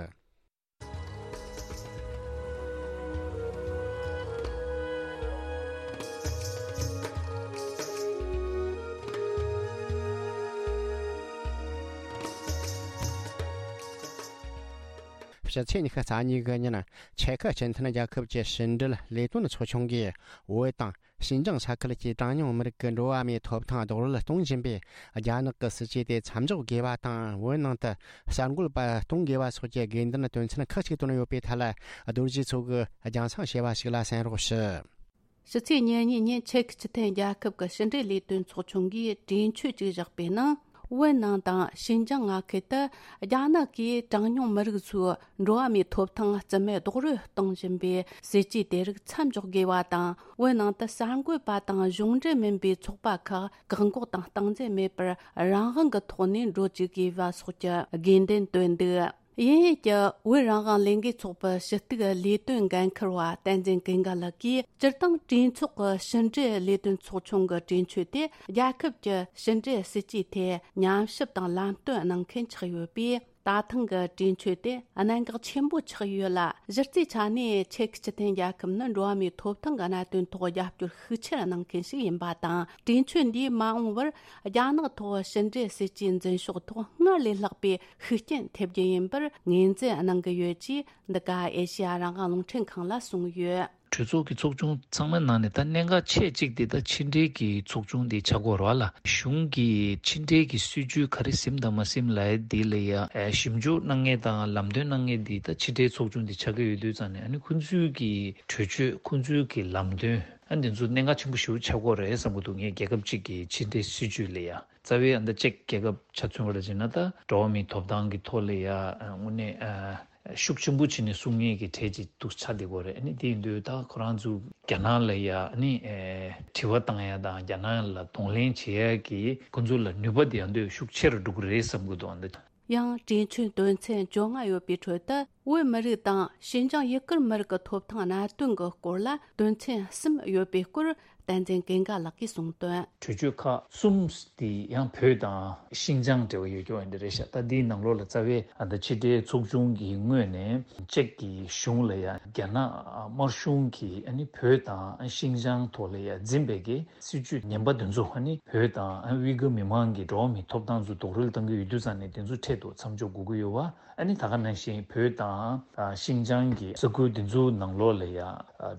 ཕྱི་ཚེས་ཉི་ཤུ་རྩ་གཉིས་གི་ཉིན་ཆེ་ཁི་སྤྱི་མཐུན་རྒྱལ་ཁབ་ཀྱི་ཕྱི་འབྲེལ་ལས་དོན་ཚོགས་ཆུང་གིས་བོད་དང་ཤིན་ཅང་ས་ཁུལ་གྱི་གྲངས་ཉུང་མི་རིགས་ཀྱི་འགྲོ་བ་མིའི་ཐོབ་ཐང་རྡོག་རོལ་གཏོང་བཞིན་པའི་རྒྱ་ནག་གི་སྲིད་ཇུས་དེ་མཚམས་འཇོག་དགོས་པ་དང་། བོད་ནང་དུ་གསར་འགོད་པ་གཏོང་དགོས་པ་སོགས་ཀྱི་དགོས་འདུན་དོན་ཚན་ཁག་ཅིག་བཏོན་ཡོད་པའི་ཐད་ལ། རྡོ་རྗེ་མཚོ་གིས་རྒྱང་སྲིང་བྱས་པ་ཞིག་ལ་གསན་རོགས་ཞུ། ཕྱི་ཚེས་ཉེར་གཉིས་ཉིན་ཆེ་ཁི་སྤྱི་མཐུན་རྒྱལ་ཁབ་ཀྱི་ཕྱི་འབྲེལ་ལས་དོན་ཚོགས་ཆུང་གིས་གྲོས་ཆོད་ཅིག་བཞག་པའི་ནང་། བོད་ནང་དང་ཤིན་ཅང་མངའ་ཁུལ་དུ་རྒྱ་ནག་གིས་གྲངས་ཉུང་མི་རིགས་ཚོའི་འགྲོ་བ་མིའི་ཐོབ་ཐང་རྩིས་མེད་རྡོག་རོལ་གཏོང་བཞིན་པའི་སྲིད་ཇུས་དེ་རིགས་མཚམས་འཇོག་དགོས་པ་དང་། བོད་ནང་དུ་གསར་འགོད་པ་དང་གཞུང་འབྲེལ་མིན་པའི་ཚོགས་པ་ཁག་བཀག་འགོག་དང་སྟངས་འཛིན་མེད་པར་རང་དབང་གི་ཐོག་ནས་འགྲོ་བཅུག་དགོས་པ་སོགས་ཀྱི་དགོས་འདུན་བཏོན་འདུག་དབྱིན་ཡུལ་གྱི་བོད་རང་དབང་ལས་འགུལ་ཚོགས་པའི་ཕྱི་གཏུག་ལས་དོན་འགན་འཁུར་བ་བསྟན་འཛིན་ཀུན་དགའ་ལགས་ཀྱིས། སྤྱིར་བཏང་གྲོས་ཚོགས་ཀྱི་ཕྱི་འབྲེལ་ལས་དོན་ཚོགས་ཆུང་གི་གྲོས་ཆོད་དེ་རྒྱལ་ཁབ་ཀྱི་ཕྱི་འབྲེལ་སྲིད་ཇུས་ཐད་ཉམས་ཞིབ་དང་ལམ་སྟོན་གནང་མཁན་ཆགས་ཡོད་པས། ད་ཐེངས་ཀྱི་གྲོས་ཆོད་དེ་གནད་འགག་ཆེན་པོ་ཆགས་ཡོད་ལ། གཞི་རྩའི་ཆ་ནས་ཆེ་ཁི་སྤྱི་མཐུན་རྒྱལ་ཁབ་ནི་འགྲོ་བ་མིའི་ཐོབ་ཐང་གི་གནད་དོན་ཐོག་རྒྱབ་སྐྱོར་ཤུགས་ཆེར་གནང་མཁན་ཞིག་ཡིན་པ་དང་། གྲོས་ཆོད་འདིས་མ་འོངས་པར་རྒྱ་ནག་ཐོག་ཕྱི་འབྲེལ་སྲིད་ཇུས་འཛིན་ཕྱོགས་ཐོག་སྔར་ལས་ལྷག་པའི་ཤུགས་རྐྱེན་ཐེབས་རྒྱུ་ཡིན་པར་ངོས་འཛིན་གནང་གི་ཡོད་ཅེས། འདི་ག་ཨེ་ཤེ་ཡ་རང་དབང་རླུང་འཕྲིན་ཁང་ལ་གསུངས་ཡོད། གྲོས་ཚོགས་ཀྱི་ཚོགས་ཆུང་ཚང་མའི་ནང་ནས་ད་གནད་འགག་ཆེ་གཅིག་དེ་ད་ཕྱི་འབྲེལ་གྱི་ཚོགས་ཆུང་དེ་ཆགས་ཀྱི་ཡོད་རེད་བ་ལ། གཞུང་གིས་ཕྱི་འབྲེལ་གྱི་སྲིད་ཇུས་ག་རེ་ཟིན་དང་མ་ཟིན་ལབ་ཡ་དེ་ལ་ཡ་ཞིབ་འཇུག་གནང་མཁན་དང་ལམ་སྟོན་གནང་མཁན་དེ་ད་ཕྱི་འབྲེལ་ཚོགས་ཆུང་དེ་ཆགས་ཀྱི་ཡོད་དུས་ཙང་ནས། ཨ་ནི་ཁོང་ཚོའི་གི་གྲོས་ཆོད། ཁོང་ཚོའི་གི་ལམ་སྟོན། ཨ་འདི་ཚོ་གནད་འགག་ཆེན་པོ་ཞེ་པོ་ཆགས་ཀྱི་ཡོད་རེད་བསམ་གྱི་འདུག་ངས་རྒྱལ་ཁབ་གཅིག་གི་ཕྱི་འབྲེལ་སྲིད་ཇུས་ལ་ཡ། རྩ་བའི་ཨ་མདའ་ཅིག་རྒྱལ་ཁབ་ཆ་མཚོན་པ་ལ་བྱས་ན། ད་འགྲོ་བ་མིའི་ཐོབ་ཐང་གི་ཐོག་ལ་ཡ་དངོས་གནས་ཤུགས་ཆེན་པོ་བྱས་ནས་གསུང་མཁན་གྱི་གྲས་ཅིག་ཏུ་ཆགས་བསྡད་ཀྱི་ཡོད་རེད། ཨ་ནི་དེ་ཡིན་དུས་ད་ཁོ་རང་ཚོ་རྒྱ་ནག་ལ་ཡ་ཨ་ནི་དྲི་བ་བཏང་ཡ་དང་རྒྱ་ནག་ལ་གདོང་ལེན་བྱེད་ཡ་གི་ཁོ་ཚོ་ལ་ནུས་པ་དེ་ཡང་དུས་ཤུགས་ཆེ་རུ་འགྲོ་གི་རེད་བསམ་གྱི་འདུག་ཨ་འདི། ཡང་གྲོས་ཆོད་དོན་ཚན་བཅོ་ལྔ་ཡོད་པའི་ཁྲོད་དུ། བོད་མི་རིགས་དང་ཤིན་ཅང་ཡུ་གུར་མི་རིགས་ཀྱི་ཐོབ་ཐང་གནད་དོན་གྱི་སྐོར་ལ་དོན་ཚན་གསུམ་ཡོད་པའི་སྐོར་བསྟན་འཛིན་ཀུན་དགའ་ལགས་ཀྱིས་གསུངས་དོན། གྲོས་ཆོད་ཁག་གསུམ་དེ་ཡང་བོད་དང་ཤིན་ཅང་འབྲེལ་བ་ཡོད་རྒྱུ་འདི་རེད་ཤག་ད་འདིའི་ནང་ལོགས་ལ་རྩ་བའི་ཨ་ད་ཕྱི་འབྲེལ་ཚོགས་ཆུང་གི་ངོས་ནས་ཅེཀ་གི་གཞུང་ལ་ཡང་རྒྱ་ནག་དམར་གཞུང་གིས་ཨ་ནི་བོད་དང་ཤིན་ཅང་ཐོག་ལ་ཡང་འཛིན་པའི་གི་སྲིད་ཇུས་ངན་པ་དེ་ཚོ། ཨ་ནི་བོད་དང་ཨ་ཝི་གུར་མི་མང་གི་འགྲོ་བ་མིའི་ཐོབ་ཐང་ཚོ་རྡོག་རོལ་གཏོང་གི་ཡོད་དུས་ཙང་ནས་དེ་ཚོ་འཕྲལ་དུ་མཚམས་འཇོག་དགོས་ཀྱི་ཡོད་པ། ཨ་ནི་ད་ག་ནང་བཞིན་བོད་དང་ཨ་ཤིན་ཅང་གི་ས་ཁུལ་དེ་ཚོའི་ནང་ལོགས་ལ་ཡ་ཨ་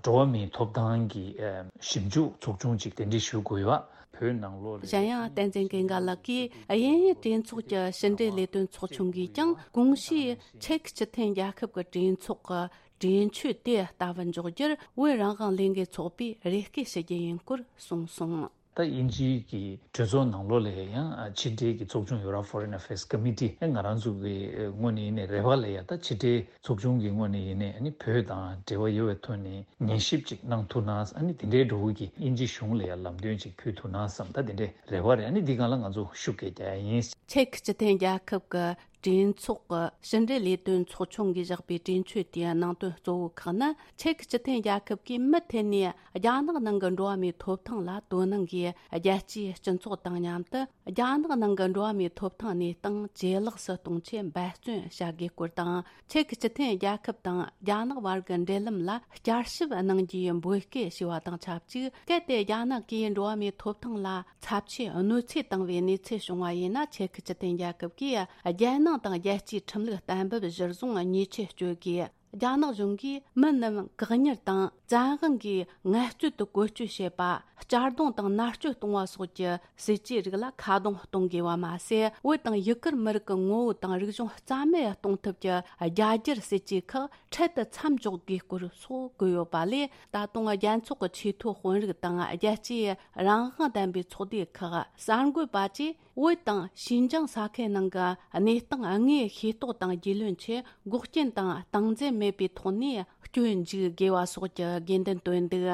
འགྲོ་བ་མིའི་ཐོབ་ཐང་གི་ཨ་ཞིབ་འཇུག་ཚོགས་ཆུང་ཅིག་གདན་འདྲེན་ཞུ་དགོས་ཡོད་པ། བོད་ནང་ལོགས་ལ་གཞན་ཡང་བསྟན་འཛིན་ཀུན་དགའ་ལགས་ཀྱིས། དབྱིན་ཡུལ་གྲོས་ཚོགས་ཀྱི་ཕྱི་འབྲེལ་ལས་དོན་ཚོགས་ཆུང་གིས་ཀྱང་གོང་ཞུས་ཆེག་སྤྱི་མཐུན་རྒྱལ་ཁབ་ཀྱི་གྲོས་ཚོགས་ཀྱི་གྲོས་ཆོད་དེ་ལྟ་བུ་འཇོག་རྒྱུར་བོད་རང་དབང་ལས་འགུལ་ཚོགས་པས་རེ་སྐུལ་ཞུ་རྒྱུ་ཡིན་སྐོར་གསུངས་སོང་། ད་དབྱིན་ཇིའི་གི་གྲོས་ཚོགས་ནང་ལོགས་ལ་ཡང་ཕྱི་འབྲེལ་གྱི་ཚོགས་ཆུང་ཡོད་ར། Foreign Affairs Committee། ཨེ་ང་རང་ཚོ་གི་ངོས་ནས་ཡིན་ནའི་རེ་བ་ལ་ཡ་ད་ཕྱི་འབྲེལ་ཚོགས་ཆུང་གི་ངོས་ནས་ཡིན་ནའི་ཨ་ནི་བོད་དང་འབྲེལ་བ་ཡོད་པའི་ཐོག་ནས་ཉན་ཞིབ་ཅིག་གནང་ཐུབ་ན། ཨ་ནི་དེ་འདྲའི་འགྲོ་བོ་གི་དབྱིན་ཇི་གཞུང་ལ་ཡ་ལམ་སྟོན་ཅིག་ཕུལ་ཐུབ་ན་བསམ། ད་དེ་འདྲའི་རེ་བ་རེད། ཨ་ནི་འདི་སྒང་ལ་ང་ཚོ་ཤུགས་སྐྱེད་རྒྱག་ཡ་ཡིན། ཆེག་སྤྱི་མཐུན་རྒྱལ་ཁབ་ཀྱི་གྲོས་ཚོགས་ཀྱི་ཕྱི་འབྲེལ་ལས་དོན་ཚོགས་ཆུང་གིས་བཞག་པའི་གྲོས་ཆོད་དེའི་ནང་དོན་གཙོ་བོ་ཁག་ནི། ཆེག་སྤྱི་མཐུན་རྒྱལ་ཁབ་ཀྱིས་མུ་མཐུད་ནས་རྒྱ་ནག་ནང་གི་འགྲོ་བ་མིའི་ཐོབ་ཐང་ལ་དོ་སྣང་གིས། རྒྱལ་སྤྱིའི་སྤྱི་ཚོགས་དང་མཉམ་དུ་རྒྱ་ནག་ནང་གི་འགྲོ་བ་མིའི་ཐོབ་ཐང་གནས་སྟངས་ཇེ་ལེགས་སུ་གཏོང་ཆེད་འབད་བརྩོན་བྱ་དགོས་སྐོར་དང་། ཆེག་སྤྱི་མཐུན་རྒྱལ་ཁབ་དང་རྒྱ་ནག་བར་གྱི་འབྲེལ་ལམ་ལ་བསྐྱར་ཞིབ་གནང་རྒྱུའི་འབོད་སྐུལ་ཞུས་པ་དང་ཆབས་ཅིག་གལ་ཏེ་རྒྱ་ནག་གིས་འགྲོ་བ་མིའི་ཐོབ་ཐང་ལ་ཚབས་ཆེའི་གནོད་འཚེ་བཏང་བའི་གནས་ཚུལ་བྱུང་བ་ཡིན་ན། ཆེག་སྤྱི་མཐུན་རྒྱལ་ཁབ་ཀྱིས་རྒྱལ་ནང་དང་རྒྱལ་སྤྱིའི་ཁྲིམས་ལུགས་གཏན་འབེབས་གཞིར་བཟུང་ཉེས་ཆད་གཅོད་དགོས། རྒྱ་ནག་གཞུང་གིས་མི་རྣམས་བཀག་ཉར་དང་བཙན་དབང་གིས་ངལ་རྩོལ་དུ་བཀོལ་སྤྱོད་བྱེད་པ། གཅར་རྡུང་དང་མནར་གཅོད་གཏོང་བ་སོགས་ཀྱི་སྲིད་ཇུས་རིགས་ལ་ཁ་རྡུང་གཏོང་དགོས་པ་མ་ཟད། བོད་དང་ཡུ་གུར་མི་རིགས་ཀྱི་ངོ་བོ་དང་རིག་གཞུང་རྩ་མེད་གཏོང་ཐབས་ཀྱི་རྒྱ་སྒྱུར་སྲིད་ཇུས་ཁག་འཕྲལ་དུ་མཚམས་འཇོག་དགོས་སྐོར་སོགས་བཀོད་ཡོད་པ་ལས། ད་དུང་རྒྱལ་ཚོགས་ཀྱི་ཆེས་མཐོའི་དཔོན་རིགས་དང་རྒྱལ་སྤྱིའི་རང་དབང་ལྡན་པའི་ཚོགས་སྡེ་ཁག་གསར་འགོད་པ་བཅས་བོད་དང་ཤིན་ཅང་ས་ཁུལ་ནང་གི་གནས་སྟངས་དངོས་ཤེས་རྟོགས་དང་རྒྱུས་ལོན་ཆེད་འགོག་རྐྱེན་དང་སྟངས་འཛིན་མེད་པའི་ཐོག་ནས་སྐྱོན་འཛུགས་དགོས་པ་སོགས་ཀྱི་དགོས་འདུན་བཏོན་འདུག་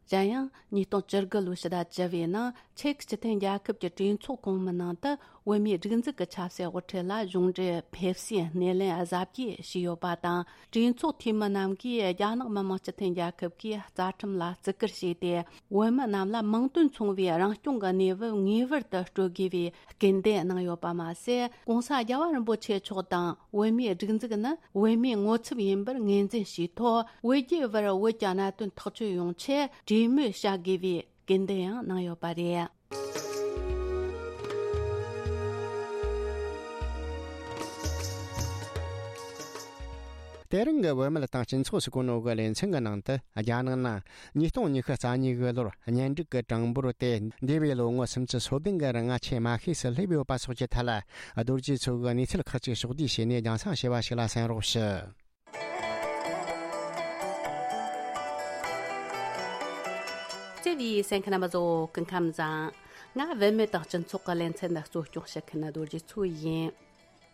གཞན་ཡང་ཉིས་སྟོང་བཅུ་དགུ་ལོའི་ཕྱི་ཟླ་བཅུ་བའི་ནང་ཆེག་སྤྱི་མཐུན་རྒྱལ་ཁབ་ཀྱི་གྲོས་ཚོགས་གོང་མའི་ནང་དུ་བོད་མིའི་སྒྲིག་འཛུགས་ཀྱི་ཆབ་སྲིད་དབུ་ཁྲིད་ལ་གཞུང་འབྲེལ་ཕེབས་བསུའི་སྣེ་ལེན་གཟབ་རྒྱས་བྱས་ཡོད་པ་དང་། གྲོས་ཚོགས་འཐུས་མི་རྣམས་ཀྱིས་རྒྱ་ནག་མི་དམངས་སྤྱི་མཐུན་རྒྱལ་ཁབ་ཀྱི་རྩ་ཁྲིམས་ལ་བརྩི་བཀུར་བྱས་ཏེ། བོད་མི་རྣམས་ལ་མིང་དོན་མཚུངས་པའི་རང་སྐྱོང་གི་གནས་བབ་ངེས་པར་དུ་སྤྲོད་དགོས་པའི་སྐུལ་འདེད་གནང་ཡོད་པ་མ་ཟད། ྋགོང་ས་རྒྱལ་བ་རིན་པོ་ཆེ་མཆོག་དང་བོད་མིའི་སྒྲིག་འཛུགས་ནི་བོད་མིའི་ངོ་ཚབ་ཡིན་པར་ངོས་འཛིན་བྱས་ཐོག་བོད་རྒྱའི་བར་བོད་ཀྱི་གནད་དོན་ཐག་གཅོད་ཡོང་ཆེད་གྲོས་མོལ་བྱ་དགོས་པའི་སྐུལ་འདེད་ཡང་གནང་ཡོད་པ་རེད། དེ་རིང་གི་བུད་མེད་དང་སྤྱི་ཚོགས་སུ་གོ་ནོ་གི་ལེ་ཚན་གྱི་ནང་དུ། རྒྱ་ནག་ནང་ཉིས་སྟོང་ཉི་ཤུ་རྩ་གཉིས་གི་ལོར་གཉེན་སྒྲིག་གི་གྲངས་འབོར་དེ་འདས་པའི་ལོ་ངོ་སུམ་ཅུ་སོ་བདུན་གི་རིང་ཆེས་དམའ་ཤོས་སུ་སླེབས་ཡོད་པ་སོགས་ཀྱི་ཐད་ལ། རྡོ་རྗེ་མཚོ་གིས་གནས་ཚུལ་ཁག་ཅིག་ཕྱོགས་བསྡུས་བྱས་ནས་རྒྱང་སྲིང་བྱས་པ་ཞིག་ལ་གསན་རོགས་ཞུ། བརྩེ་བའི་གསན་མཁན་རྣམ་པ་ཚོ་སྐུ་ཁམས་བཟང་། ང་བུད་མེད་དང་སྤྱི་ཚོགས་ཀྱི་ལེ་ཚན་འདི་གཙོ་སྐྱོང་བྱེད་མཁན་རྡོ་རྗེ་མཚོ་ཡིན།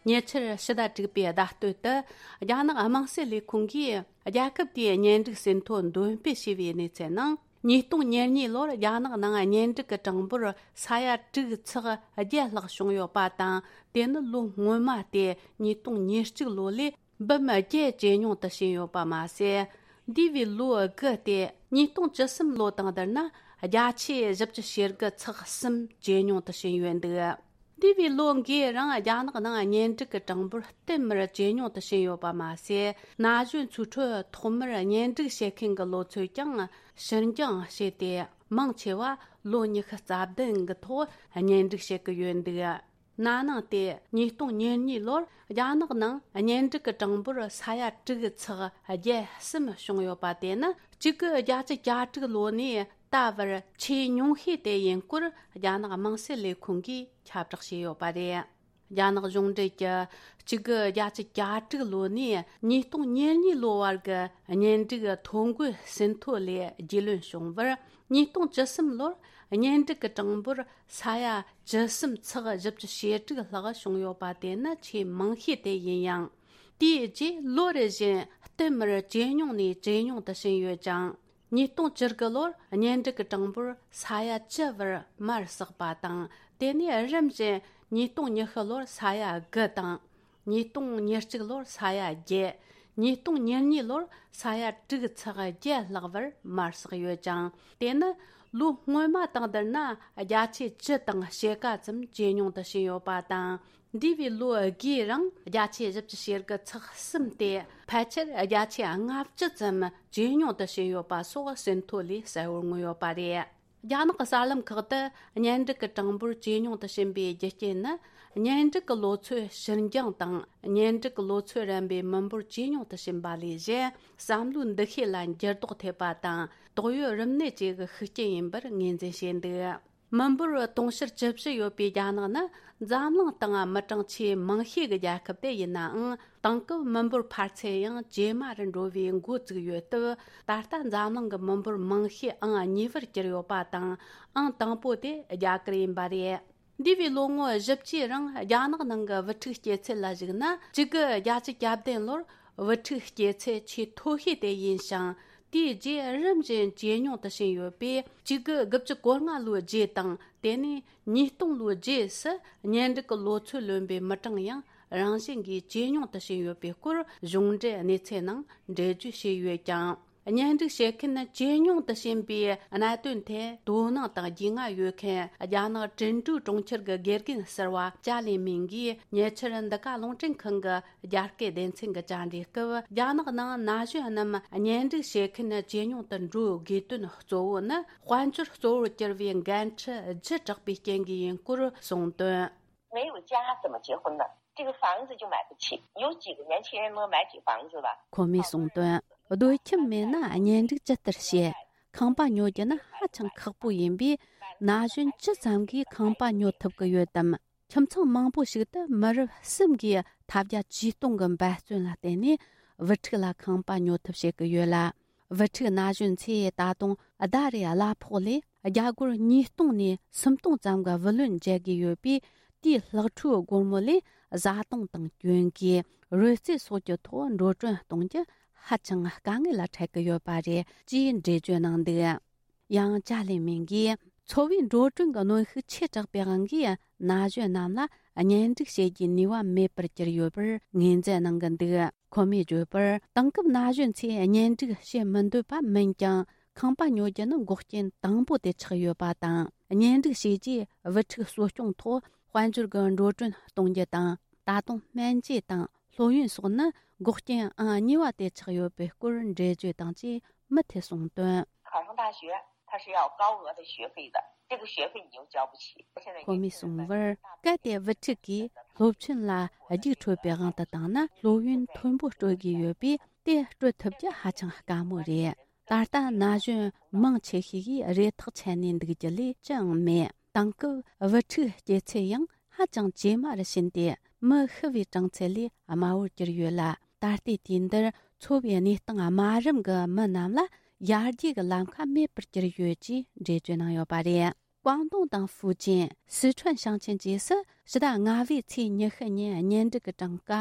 ཉེ་ཆར་ཕྱི་ཟླ་དྲུག་པའི་ཟླ་སྟོད་དུ། རྒྱ་ནག་དམངས་སྲིད་ལས་ཁུངས་ཀྱིས་རྒྱལ་ཁབ་དེའི་གཉེན་སྒྲིག་ཟིན་ཐོ་འདོན་སྤེལ་བྱས་པའི་གནས་ཚུལ་ནང་། ཉིས་སྟོང་ཉེར་གཉིས་ལོར་རྒྱ་ནག་ནང་གཉེན་སྒྲིག་གི་གྲངས་འབོར་ས་ཡ་དྲུག་ཚེག་བརྒྱད་ལྷག་བྱུང་ཡོད་པ་དང་། དེ་ནི་ལོ་སྔོན་མ་སྟེ་ཉིས་སྟོང་ཉེར་གཅིག་ལོ་ལས་འབུམ་བརྒྱད་ཇེ་ཉུང་དུ་ཕྱིན་ཡོད་པ་མ་ཟད། འདས་པའི་ལོ་དགུ་སྟེ་ཉིས་སྟོང་བཅུ་གསུམ་ལོ་དང་བསྡུར་ན་བརྒྱ་ཆ་བཞི་བཅུ་ཞེ་དགུ་ཚེག་གསུམ་ཇེ་ཉུང་དུ་ཕྱིན་ཡོད་འདུག་འདས་པའི་ལོ་འགའི་རིང་རྒྱ་ནག་ནང་གཉེན་སྒྲིག་གི་གྲངས་འབོར་བསྟུད་མར་ཇེ་ཉུང་དུ་ཕྱིན་ཡོད་པ་མ་ཟད། ན་གཞོན་ཚོའི་ཁྲོད་ཐོག་མར་གཉེན་སྒྲིག་བྱེད་མཁན་གྱི་ལོ་ཚོད་ཀྱང་ཕྱིར་འགྱངས་བྱས་ཏེ། མང་ཆེ་བ་ལོ་ཉི་ཤུ་རྩ་བདུན་གྱི་ཐོག་གཉེན་སྒྲིག་བྱེད་ཀྱི་ཡོད་འདུག་ན་ནིང་སྟེ་ཉིས་སྟོང་ཉེར་གཉིས་ལོར་རྒྱ་ནག་ནང་གཉེན་སྒྲིག་གི་གྲངས་འབོར་ས་ཡ་དྲུག་ཚེག་བརྒྱད་གསུམ་བྱུང་ཡོད་པ་དེ་ནི་གཅིག་དགུ་བརྒྱད་ཅུ་གྱ་དྲུག་ལོ་ནས་ད་བར་ཆེས་ཉུང་ཤོས་དེ་ཡིན་སྐོར་རྒྱ་ནག་དམངས་སྲིད་ལས་ཁུངས་ཀྱིས་ཁྱབ་བསྒྲགས་བྱས་ཡོད་པ་རེད། རྒྱ་ནག་གཞུང་འབྲེལ་གྱི་གཅིག་དགུ་བརྒྱད་ཅུ་གྱ་དྲུག་ལོ་ནས་ཉིས་སྟོང་ཉེར་གཉིས་ལོ་བར་གྱི་གཉེན་སྒྲིག་ཐོ་འགོད་ཟིན་ཐོ་ལས་རྒྱུས་ལོན་བྱུང་བར། ཉིས་སྟོང་བཅུ་གསུམ་ལོར་གཉེན་སྒྲིག་གི་གྲངས་འབོར་ས་ཡ་བཅུ་གསུམ་ཚེག་བཞི་བཅུ་ཞེ་དྲུག་ལྷག་བྱུང་ཡོད་པ་དེ་ནི་ཆེས་མང་ཤོས་དེ་ཡིན་ཡང་། དེའི་རྗེས་ལོ་རེ་བཞིན་བསྟུད་མར་ཇེ་ཉུང་ནས་ཇེ་ཉུང་དུ་ཕྱིན་ཡོད་ཅིང་། ཉིས་སྟོང་བཅུ་དགུ་ལོར་གཉེན་སྒྲིག་གི་གྲངས་འབོར་ས་ཡ་བཅུ་བར་མར་ཟགས་པ་དང་། དེ་ནས་རིམ་བཞིན་ཉིས་སྟོང་ཉི་ཤུ་ལོར་ས་ཡ་དགུ་དང་། ཉིས་སྟོང་ཉེར་གཅིག་ལོར་ས་ཡ་བརྒྱད། ཉིས་སྟོང་ཉེར་གཉིས་ལོར་ས་ཡ་དྲུག་ཚེག་བརྒྱད་ལྷག་བར་མར་ཟགས་ཡོད་ཅིང་། དེ་ནི་ལོ་སྔོན་མ་དང་བསྡུར་ན་བརྒྱ་ཆ་བཅུ་དང་ཕྱེད་ཀ་ཙམ་ཇེ་ཉུང་དུ་ཕྱིན་ཡོད་པ་དང་། འདས་པའི་ལོ་དགུའི་རིང་བརྒྱ་ཆ་བཞི་བཅུ་ཞེ་དགུ་ཚེག་གསུམ་སྟེ། ཕལ་ཆེར་བརྒྱ་ཆ་ལྔ་བཅུ་ཙམ་ཇེ་ཉུང་དུ་ཕྱིན་ཡོད་པ་སོགས་ཟིན་ཐོ་ལས་གསལ་བོར་མངོན་ཡོད་པ་རེད། རྒྱ་ནག་གི་གསར་ལམ་ཁག་ཏུ་གཉེན་སྒྲིག་གི་གྲངས་འབོར་ཇེ་ཉུང་དུ་ཕྱིན་པའི་རྒྱུ་རྐྱེན་ནི། གཉེན་སྒྲིག་གི་ལོ་ཚོད་ཕྱིར་འགྱངས་དང་། གཉེན་སྒྲིག་གི་ལོ་ཚོད་རན་པའི་མི་འབོར་ཇེ་ཉུང་དུ་ཕྱིན་པ་ལས་གཞན། བསམ་བློའི་འདུ་ཤེས་ལ་འགྱུར་ལྡོག་ཐེབས་པ་དང་། དོགས་ཡོད་རིམས་ནད་བཅས་ཀྱི་ཤུགས་རྐྱེན་ཡིན་པར་ངོས་འཛིན་བྱས་འདུག་མི་འབོར་དུང་ཕྱུར་བཅུ་བཞི་ཡོད་པའི་རྒྱ་ནག་ནི་འཛམ་གླིང་སྟེང་མི་གྲངས་ཆེས་མང་ཤོས་ཀྱི་རྒྱལ་ཁབ་དེ་ཡིན་ནའང་། དེང་སྐབས་མི་འབོར་འཕར་ཚད་ཡང་ཇེ་དམའ་རུ་འགྲོ་བའི་འགོ་བཙུགས་ཡོད་སྟབས། ད་ལྟ་འཛམ་གླིང་གི་མི་འབོར་མང་ཤོས་ཨང་གཉིས་པར་གྱུར་ཡོད་པ་དང་། ཨང་དང་པོ་དེ་རྒྱ་གར་ཡིན་པ་རེད། འདས་པའི་ལོ་ངོ་བཞི་བཅུའི་རིང་རྒྱ་ནག་ནང་གི་བུ་ཕྲུག་སྐྱེ་ཚད་ལ་གཞིགས་ན། གཅིག་དགུ་བརྒྱད་ཅུ་གྱ་བདུན་ལོར་བུ་ཕྲུག་སྐྱེ་ཚད་ཆེས་མཐོ་ཤོས་དེ་ཡིན་ཞིང་། དེའི་རྗེས་རིམ་བཞིན་ཇེ་ཉུང་དུ་ཕྱིན་ཡོད་པས། གཅིག་དགུ་དགུ་བཅུ་གོ་ལྔ་ལོའི་རྗེས་དང་། དེ་ནས་ཉིས་སྟོང་ལོའི་རྗེས་སུ་གཉེན་སྒྲིག་གི་ལོ་ཚོད་ལོན་པའི་མི་གྲངས་ཡང་རང་བཞིན་གྱིས་ཇེ་ཉུང་དུ་ཕྱིན་ཡོད་པའི་སྐོར་གཞུང་འབྲེལ་གནས་ཚུལ་ནང་འགྲེལ་བརྗོད་བྱས་ཡོད་ཀྱང་། གཉེན་སྒྲིག་བྱེད་མཁན་ཇེ་ཉུང་དུ་ཕྱིན་པའི་གནད་དོན་ཐད་དོ་སྣང་དང་རྒྱུས་མངའ་ཡོད་མཁན་རྒྱ་ནག་ཀྲིན་ཀྲུའུ་གྲོང་ཁྱེར་གྱི་དགེ་རྒན་ཟུར་པ་ཅཱ་ལི་མིང་གིས་ཉེ་ཆར་འདི་ག་རླུང་འཕྲིན་ཁང་གི་རྒྱ་སྐད་སྡེ་ཚན་གྱི་བཅར་འདྲིའི་སྐབས། རྒྱ་ནག་ནང་ན་གཞོན་རྣམས་གཉེན་སྒྲིག་བྱེད་མཁན་ཇེ་ཉུང་དུ་འགྲོ་དགོས་དོན་གཙོ་བོ་ནི། དཔལ་འབྱོར་གཙོ་བོར་གྱུར་བའི་འགན་འཁྲི་ལྗིད་དྲགས་པའི་རྐྱེན་གྱིས་ཡིན་སྐོར་གསུངས་དོན། 没有家怎么结婚呢？这个房子就买不起，有几个年轻人能买起房子吧？ ཁོ་མོས་གསུངས་དོན། སྡོད་ཁྱིམ་མེད་ན་གཉེན་སྒྲིག་ཇི་ལྟར་བྱེད། ཁང་པ་ཉོ་རྒྱུ་ནི་ཧ་ཅང་ཁག་པོ་ཡིན་པས། ན་གཞོན་ཅི་ཙམ་གྱིས་ཁང་པ་ཉོ་ཐུབ་ཀྱི་ཡོད་དམ། ཁྱིམ་ཚང་མང་པོ་ཞིག་ཏུ་མི་རབས་གསུམ་གྱིས་ཐབས་བརྒྱ་ཇུས་སྟོང་གི་འབད་བརྩོན་ལ་བརྟེན་ནས་བུ་ཕྲུག་ལ་ཁང་པ་ཉོ་ཐབས་བྱེད་ཀྱི་ཡོད་ལ། བུ་ཕྲུག་ན་གཞོན་ཚོས་ད་དུང་ཟླ་རེའི་གླ་ཕོགས་ལས་རྒྱ་སྒོར་ཉིས་སྟོང་ནས་སུམ་སྟོང་ཙམ་གྱི་བུ་ལོན་འཇལ་དགོས་ཡོད་པས། དེའི་ལྷག་འཕྲོའི་སྒོར་མོ་ལས་བཟའ་བཏུང་དང་གྱོན་གོས། རོལ་རྩེད་སོགས་ཀྱི་ཐོག་འགྲོ་གྲོན་གཏོང་རྒྱུ་ཧ་ཅང་དཀའ་ངལ་ལ་འཕྲད་ཀྱི་ཡོད་པ་རེད་ཅེས་འགྲེལ་བརྗོད་གནང་འདུག་ཡང་ཅཱ་ལི་མིང་གིས། འཚོ་བའི་འགྲོ་གྲོན་གྱི་གནོན་ཤུགས་ཆེ་དྲགས་པའི་དབང་གིས། ན་གཞོན་རྣམས་ལ་གཉེན་སྒྲིག་བྱེད་རྒྱུའི་ནུས་པ་མེད་པར་གྱུར་ཡོད་པར་ངོས་འཛིན་གནང་གི་འདུག་ཁོ་མོས་བརྗོད་པར། དེང་སྐབས་ན་གཞོན་ཚོས་གཉེན་སྒྲིག་བྱེད་མི་འདོད་པ་མིན་ཀྱང་། ཁང་པ་ཉོ་རྒྱུ་ནི་འགོག་རྐྱེན་དང་པོ་དེ་ཆགས་ཡོད་པ་དང་། གཉེན་སྒྲིག་བྱས་རྗེས་བུ་ཕྲུག་གསོ་སྐྱོང་ཐོག་དཔལ་འབྱོར་གྱི་འགྲོ་གྲོན་གཏོང་རྒྱུ་དང་། ད་དུང་སྨན་བཅོས་དང་སློབ་ཡོན་སོགས་ནི་འགོག་རྐྱེན་ཨང་གཉིས་པ་དེ་ཆགས་ཡོད་པའི་སྐོར་འགྲེལ་བརྗོད་དང་བཅས་མུ་མཐུད་གསུངས་དོན། 考上大学，它是要高额的学费的，这个学费你又交不起。现在 ཁོ་མོས་གསུངས་པར། གལ་ཏེ་བུ་ཕྲུག་གིས་ སྟོབས་ཆེན་ལ་རྒྱུགས་འཕྲོད་པའི་དབང་དུ་བཏང་ན། སློབ་ཡོན་མཐོན་པོ་སྤྲོད་དགོས་ཡོད་པས། དེ་སྤྲོད་ཐུབ་རྒྱུ་ཧ་ཅང་དཀའ་མོ་རེད། ད་ལྟ་ན་གཞོན་མང་ཆེ་ཤོས་ཀྱིས་རེ་ཐག་ཆད་ནས་འདུག་རྒྱུ་ལས་ཅི་ཡང་མེད། དེང་སྐབས་བུ་ཕྲུག་སྐྱེ་ཚད་ཡང་ཧ་ཅང་ཇེ་དམའ་རུ་ཕྱིན་ཏེ། མི་ཤི་བའི་གྲངས་ཚད་ལས་དམའ་བོར་གྱུར་ཡོད་ལ། ད་ལྟའི་དུས་འདིར་འཚོ་བའི་གནས་སྟངས་དམའ་རིམ་གྱི་མི་རྣམས་ལ་ཡར་རྒྱས་ཀྱི་ལམ་ཁ་མེད་པར་གྱུར་ཡོད་ཅེས་འགྲེལ་བརྗོད་གནང་ཡོད་པ་རེད། ཀོང་ཏུང་དང་ཧྥུའུ་ཅན། སི་ཁྲོན་ཞིང་ཆེན་བཅས་སུ་ཕྱི་ཟླ་ལྔ་པའི་ཚེས་ཉི་ཤུ་ཉིན་གཉེན་སྒྲིག་གི་གྲངས་ཀ་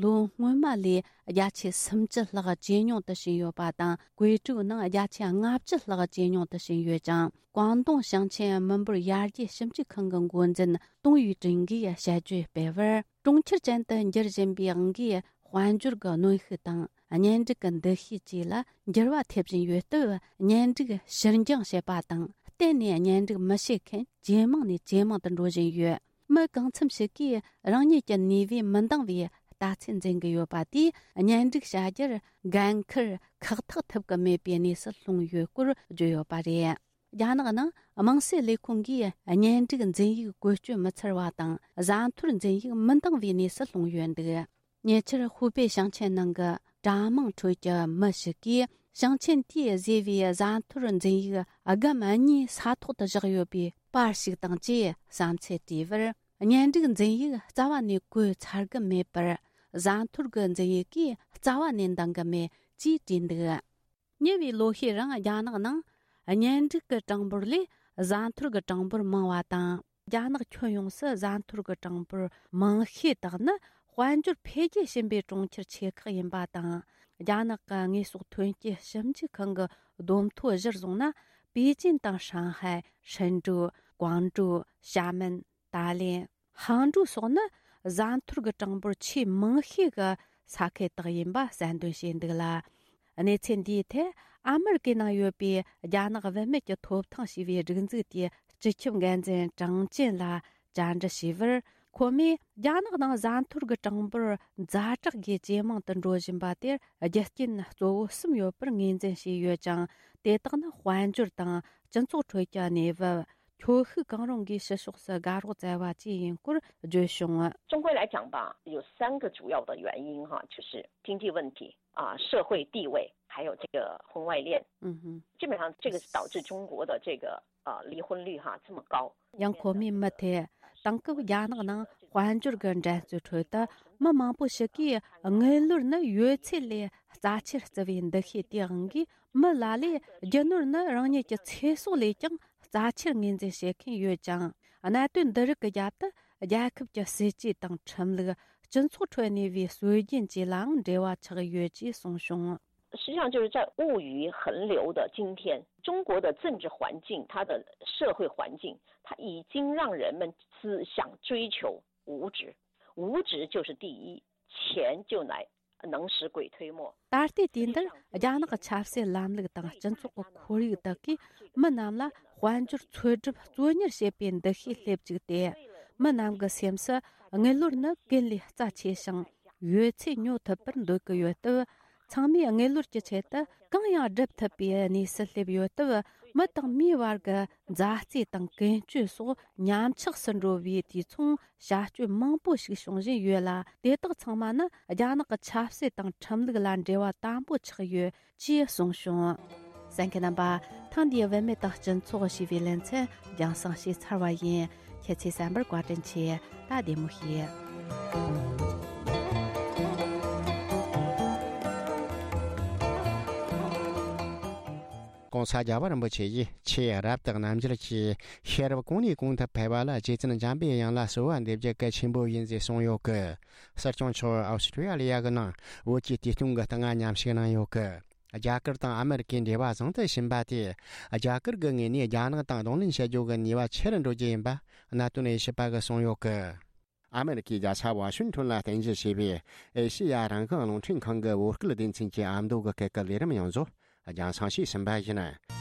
ལོ་སྔོན་མ་ལས་བརྒྱ་ཆ་སུམ་ཅུ་ལྷག་ཇེ་ཉུང་དུ་ཕྱིན་ཡོད་པ་དང་། བཀོད་སྒྲིག་ནང་བརྒྱ་ཆ་ལྔ་བཅུ་ལྷག་ཇེ་ཉུང་དུ་ཕྱིན་ཡོད་ཅིང་། ཀོང་ཏུང་ཞིང་ཆེན་མི་འབོར་ཡར་རྒྱས་ཞིབ་འཇུག་ཁང་གི་འགོ་འཛིན་ཏུང་ཡུས་ཀྲིན་གྱིས་དཔྱད་བརྗོད་སྤེལ་བར། གྲོང་ཁྱེར་ཅན་དུ་འགྱུར་བཞིན་པའི་འོང་གིས་དཔལ་འབྱོར་གྱི་གནོན་ཤུགས་དང་། གཉེན་སྒྲིག་གི་འདུ་ཤེས་བཅས་ལ་འགྱུར་བ་ཐེབས་བཞིན་ཡོད་སྟབས། གཉེན་སྒྲིག་ཕྱིར་འགྱངས་བྱེད་པ་དང་། གཏན་ནས་གཉེན་སྒྲིག་མི་བྱེད་མཁན་ཇེ་མང་ནས་ཇེ་མང་དུ་འགྲོ་བཞིན་ཡོད། མི་གང་འཚམ་ཞིག་གིས་རང་ཉིད་ཀྱི་ནུས་པས་མི་འདང་བའི་ལྟ་ཚུལ་འཛིན་གྱི་ཡོད་པ་དེས། གཉེན་སྒྲིག་བྱ་རྒྱུར་འགན་འཁུར་ཁག་ཐེག་ཐུབ་ཀྱི་མེད་པའི་གནས་སུ་ལྷུང་ཡོད་སྐོར་བརྗོད་ཡོད་པ་རེད། རྒྱ་ནག་ནང་དམངས་སྲིད་ལས་ཁུངས་ཀྱིས་གཉེན་སྒྲིག་འཛིན་ཡིག་བཀོལ་སྤྱོད་མི་འཚར་བ་དང་། བཟའ་འཐོར་འཛིན་ཡིག་མི་འདང་བའི་གནས་སུ་ལྷུང་ཡོད་འདུག་ཉེ་ཆར་ཧུའུ་པེ་ཞིང་ཆེན་ནང་གི་གྲྭ་མང་ཁྲོད་ཀྱི་མི་ཞིག་གིས། ཞིང་ཆེན་དེས་བཟོས་པའི་བཟའ་འཐོར་འཛིན་ཡིག་སྒམ་གཉིས་ས་ཐོག་ཏུ་བཞག་ཡོད་པའི་པར་ཞིག་དང་བཅས་བསམ་ཚུལ་བྲིས་པར། གཉེན་སྒྲིག་འཛིན་ཡིག་རྩ་བ་ནས་བཀོལ་ཚར་གི་མེད་པར། བཟའ་འཐོར་གྱི་འཛིན་ཡིག་གིས་རྩ་བ་ནས་འདང་གི་མེད་ཅེས་བྲིས་འདུག་ཉེ་བའི་ལོ་ཤས་རིང་རྒྱ་ནག་ནང་གཉེན་སྒྲིག་གི་གྲངས་འབོར་ལས་བཟའ་འཐོར་གྱི་གྲངས་འབོར་མང་བ་དང་། རྒྱ་ནག་ཁྱོན་ཡོངས་སུ་བཟའ་འཐོར་གྱི་གྲངས་འབོར་མང་ཤོས་དག་ནི་དཔལ་འབྱོར་འཕེལ་རྒྱས་ཕྱིན་པའི་གྲོང་ཁྱེར་ཆེ་ཁག་ཡིན་པ་དང་། རྒྱ་ནག་གི་དངོས་ཟོག་ཐོན་སྐྱེད་ཞིབ་འཇུག་ཁང་གི་བསྡོམས་ཐོ་གཞིར་བཟུང་ན། པེ་ཅིན་དང་ཧྲང་ཧའེ། ཧྲིན་ཀྲུའུ། ཀོང་ཀྲོའུ། ཞྭ་མེན། ཏཱ་ལེན། ཧང་ཀྲོའུ་སོགས་ནི་བཟའ་འཐོར་གྱི་གྲངས་འབོར་ཆེས་མང་ཤོས་ཀྱི་ས་ཁུལ་དག་ཡིན་པ་གསལ་འདོན་བྱས་འདུག་ལ། གནས་ཚུལ་འདིའི་ཐད་ཨ་མི་རི་ཀའི་ནང་ཡོད་པའི་རྒྱ་ནག་བུད་མེད་ཀྱི་ཐོབ་ཐང་ཞེས་པའི་སྒྲིག་འཛུགས་དེའི་སྤྱི་ཁྱབ་འགན་འཛིན་ཀྲང་ཅན་ལ་བཅར་འདྲི་བྱས་པར། ཁོ་མོས་རྒྱ་ནག་ནང་བཟའ་འཐོར་གྱི་གྲངས་འབོར་ཛ་དྲག་གིས་ཇེ་མང་དུ་འགྲོ་བཞིན་པ་དེར་རྒྱུ་རྐྱེན་གཙོ་བོ་གསུམ་ཡོད་པར་ངོས་འཛིན་བྱས་ཡོད་ཅིང་། དེ་དག་ནི་དཔལ་འབྱོར་དང་སྤྱི་ཚོགས་ཁྲོད་ཀྱི་གནས་བབ། ཁྱོ་ཤུག་གང་རུང་གིས་ཕྱི་ཕྱོགས་སུ་དགའ་རོགས་བཙལ་བ་བཅས་ཡིན་སྐོར་བརྗོད་བྱུང་། 中国来讲吧，有三个主要的原因哈，就是经济问题啊、社会地位，还有这个婚外恋。嗯哼。基本上这个是导致中国的这个呃离婚率哈这么高。 ཡང་ཁོ་མོས་མུ་མཐུད་དེང་སྐབས་རྒྱ་ནག་ནང་དཔལ་འབྱོར་གྱི་འགྲན་རྩོད་ཁྲོད་དུ་མི་མང་པོ་ཞིག་གིས་དངུལ་ལོར་ནི་ཡོད་ཚད་ལས་རྩ་ཆེར་བརྩི་བའི་འདུ་ཤེས་དེའང་གིས། མི་ལ་ལས་རྒྱུ་ནོར་ནི་རང་ཉིད་ཀྱི་ཚེ་སྲོག་ལས་ཀྱང་རྩ་ཆེར་ངོས་འཛིན་བྱེད་མཁན་ཡོད་ཅིང་། གནད་དོན་འདི་རིགས་ཀྱི་རྒྱབ་ཏུ་རྒྱལ་ཁབ་ཀྱི་སྲིད་ཇུས་དང་ཁྲིམས་ལུགས། སྤྱི་ཚོགས་ཁྲོད་གནས་པའི་སྲོལ་རྒྱུན་བཅས་ལའང་འབྲེལ་བ་ཆགས་ཡོད་ཅེས་གསུངས་བྱུང་། 实际上就是在物欲横流的今天，中国的政治环境，它的社会环境，它已经让人们只想追求物质，物质就是第一，钱就来能使鬼推磨。 ད་ལྟའི་དུས་འདིར་རྒྱ་ནག་གི་ཆབ་སྲིད་ལམ་ལུགས་དང་སྤྱི་ཚོགས་ཀྱི་ཁོར་ཡུག་དག་གིས་མི་རྣམས་ལ་དཔལ་འབྱོར་འཚོལ་སྒྲུབ་གཙོ་གཉེར་བྱེད་པའི་འདུ་ཤེས་སླེབས་བཅུག་སྟེ། མི་རྣམས་ཀྱི་སེམས་སུ་དངུལ་ལོར་ནི་ཀུན་ལས་རྩ་ཆེ་ཞིང་། ཡོད་ཚད་ཉོ་ཐུབ་པར་འདོད་ཀྱི་ཡོད་སྟབས། ཚང་མས་དངུལ་ལོར་གྱི་ཆེད་དུ་གང་ཡང་སྒྲུབ་ཐུབ་པའི་གནས་སུ་སླེབས་ཡོད་སྟབས། མི་དང་མིའི་བར་གྱི་མཛའ་བརྩེ་དང་ཀུན་སྤྱོད་སོགས་ཉམས་ཆག་སུ་འགྲོ་བའི་དུས་མཚུངས་བྱ་སྤྱོད་མང་པོ་ཞིག་བྱུང་བཞིན་ཡོད་ལ། དེ་དག་ཚང་མ་ནི་རྒྱ་ནག་གི་ཆབ་སྲིད་དང་ཁྲིམས་ལུགས་ལ་འབྲེལ་བ་དམ་པོ་ཆགས་ཡོད་ཅེས་གསུངས་བྱུང་། གསན་མཁན་རྣམ་པ། ཐེངས་འདིའི་བུད་མེད་དང་སྤྱི་ཚོགས་ཞེས་པའི་ལེ་ཚན་རྒྱང་སྲིང་བྱས་ཚར་བ་ཡིན། ཁྱེད་ཚོས་གསན་པར་བཀའ་དྲིན་ཆེ། ད་བདེ་མོ་བྱོས། ༸གོང་ས་རྒྱལ་བ་རིན་པོ་ཆེ་ཡིས་ཆེས་རབ་ཏུ་རྣམ་འགྱུར་གྱིས། ཤེས་རབ་གོང་ནས་གོང་དུ་འཕེལ་བ་ལ། རྗེ་བཙུན་འཇམ་པའི་དབྱངས་ལ་གསོལ་བ་འདེབས་རྒྱུ་གལ་ཆེན་པོ་ཡིན་ཟེར་གསུངས་ཡོད་གི། སྲིད་སྐྱོང་མཆོག་ཨོ་སི་ཀྲི་ཡ་ལི་ཡ་གི་ནང་བོད་ཀྱི་དུས་སྟོན་གྱི་ལྟ་བ་ཉམས་ཞིབ་གནང་ཡོད་གི། རྒྱ་གར་དང་ཨ་མི་རི་ཀའི་འབྲེལ་བ་བཟང་དུ་ཕྱིན་པ་དེས། རྒྱ་གར་གྱི་ངོས་ནས་རྒྱ་ནག་དང་གདོང་ལེན་བྱེད་རྒྱུ་གི་ནུས་པ་ཆེ་རུ་འགྲོ་རྒྱུ་ཡིན་པ་གནད་དོན་དབྱེ་ཞིབ་པ་གིས་གསུངས་ཡོད་གི། ཨ་མི་རི་ཀའི་རྒྱལ་ས་ཝ་ཤིང་ཊོན་ལ་རྟེན་གཞི་བྱས་པའི་ཨེ་ཤེ་ཡ་རང་དབང་རླུང་འཕྲིན་ཁང་གི་བོད་སྐད་སྡེ་ཚན་གྱི་ཨ་མདོ་གི་སྐད་ཀྱི་ལས་རིམ་ཡོངས་རྫོགས་རྒྱང་སྲིང་བྱས་ཟིན་པ་ཡིན།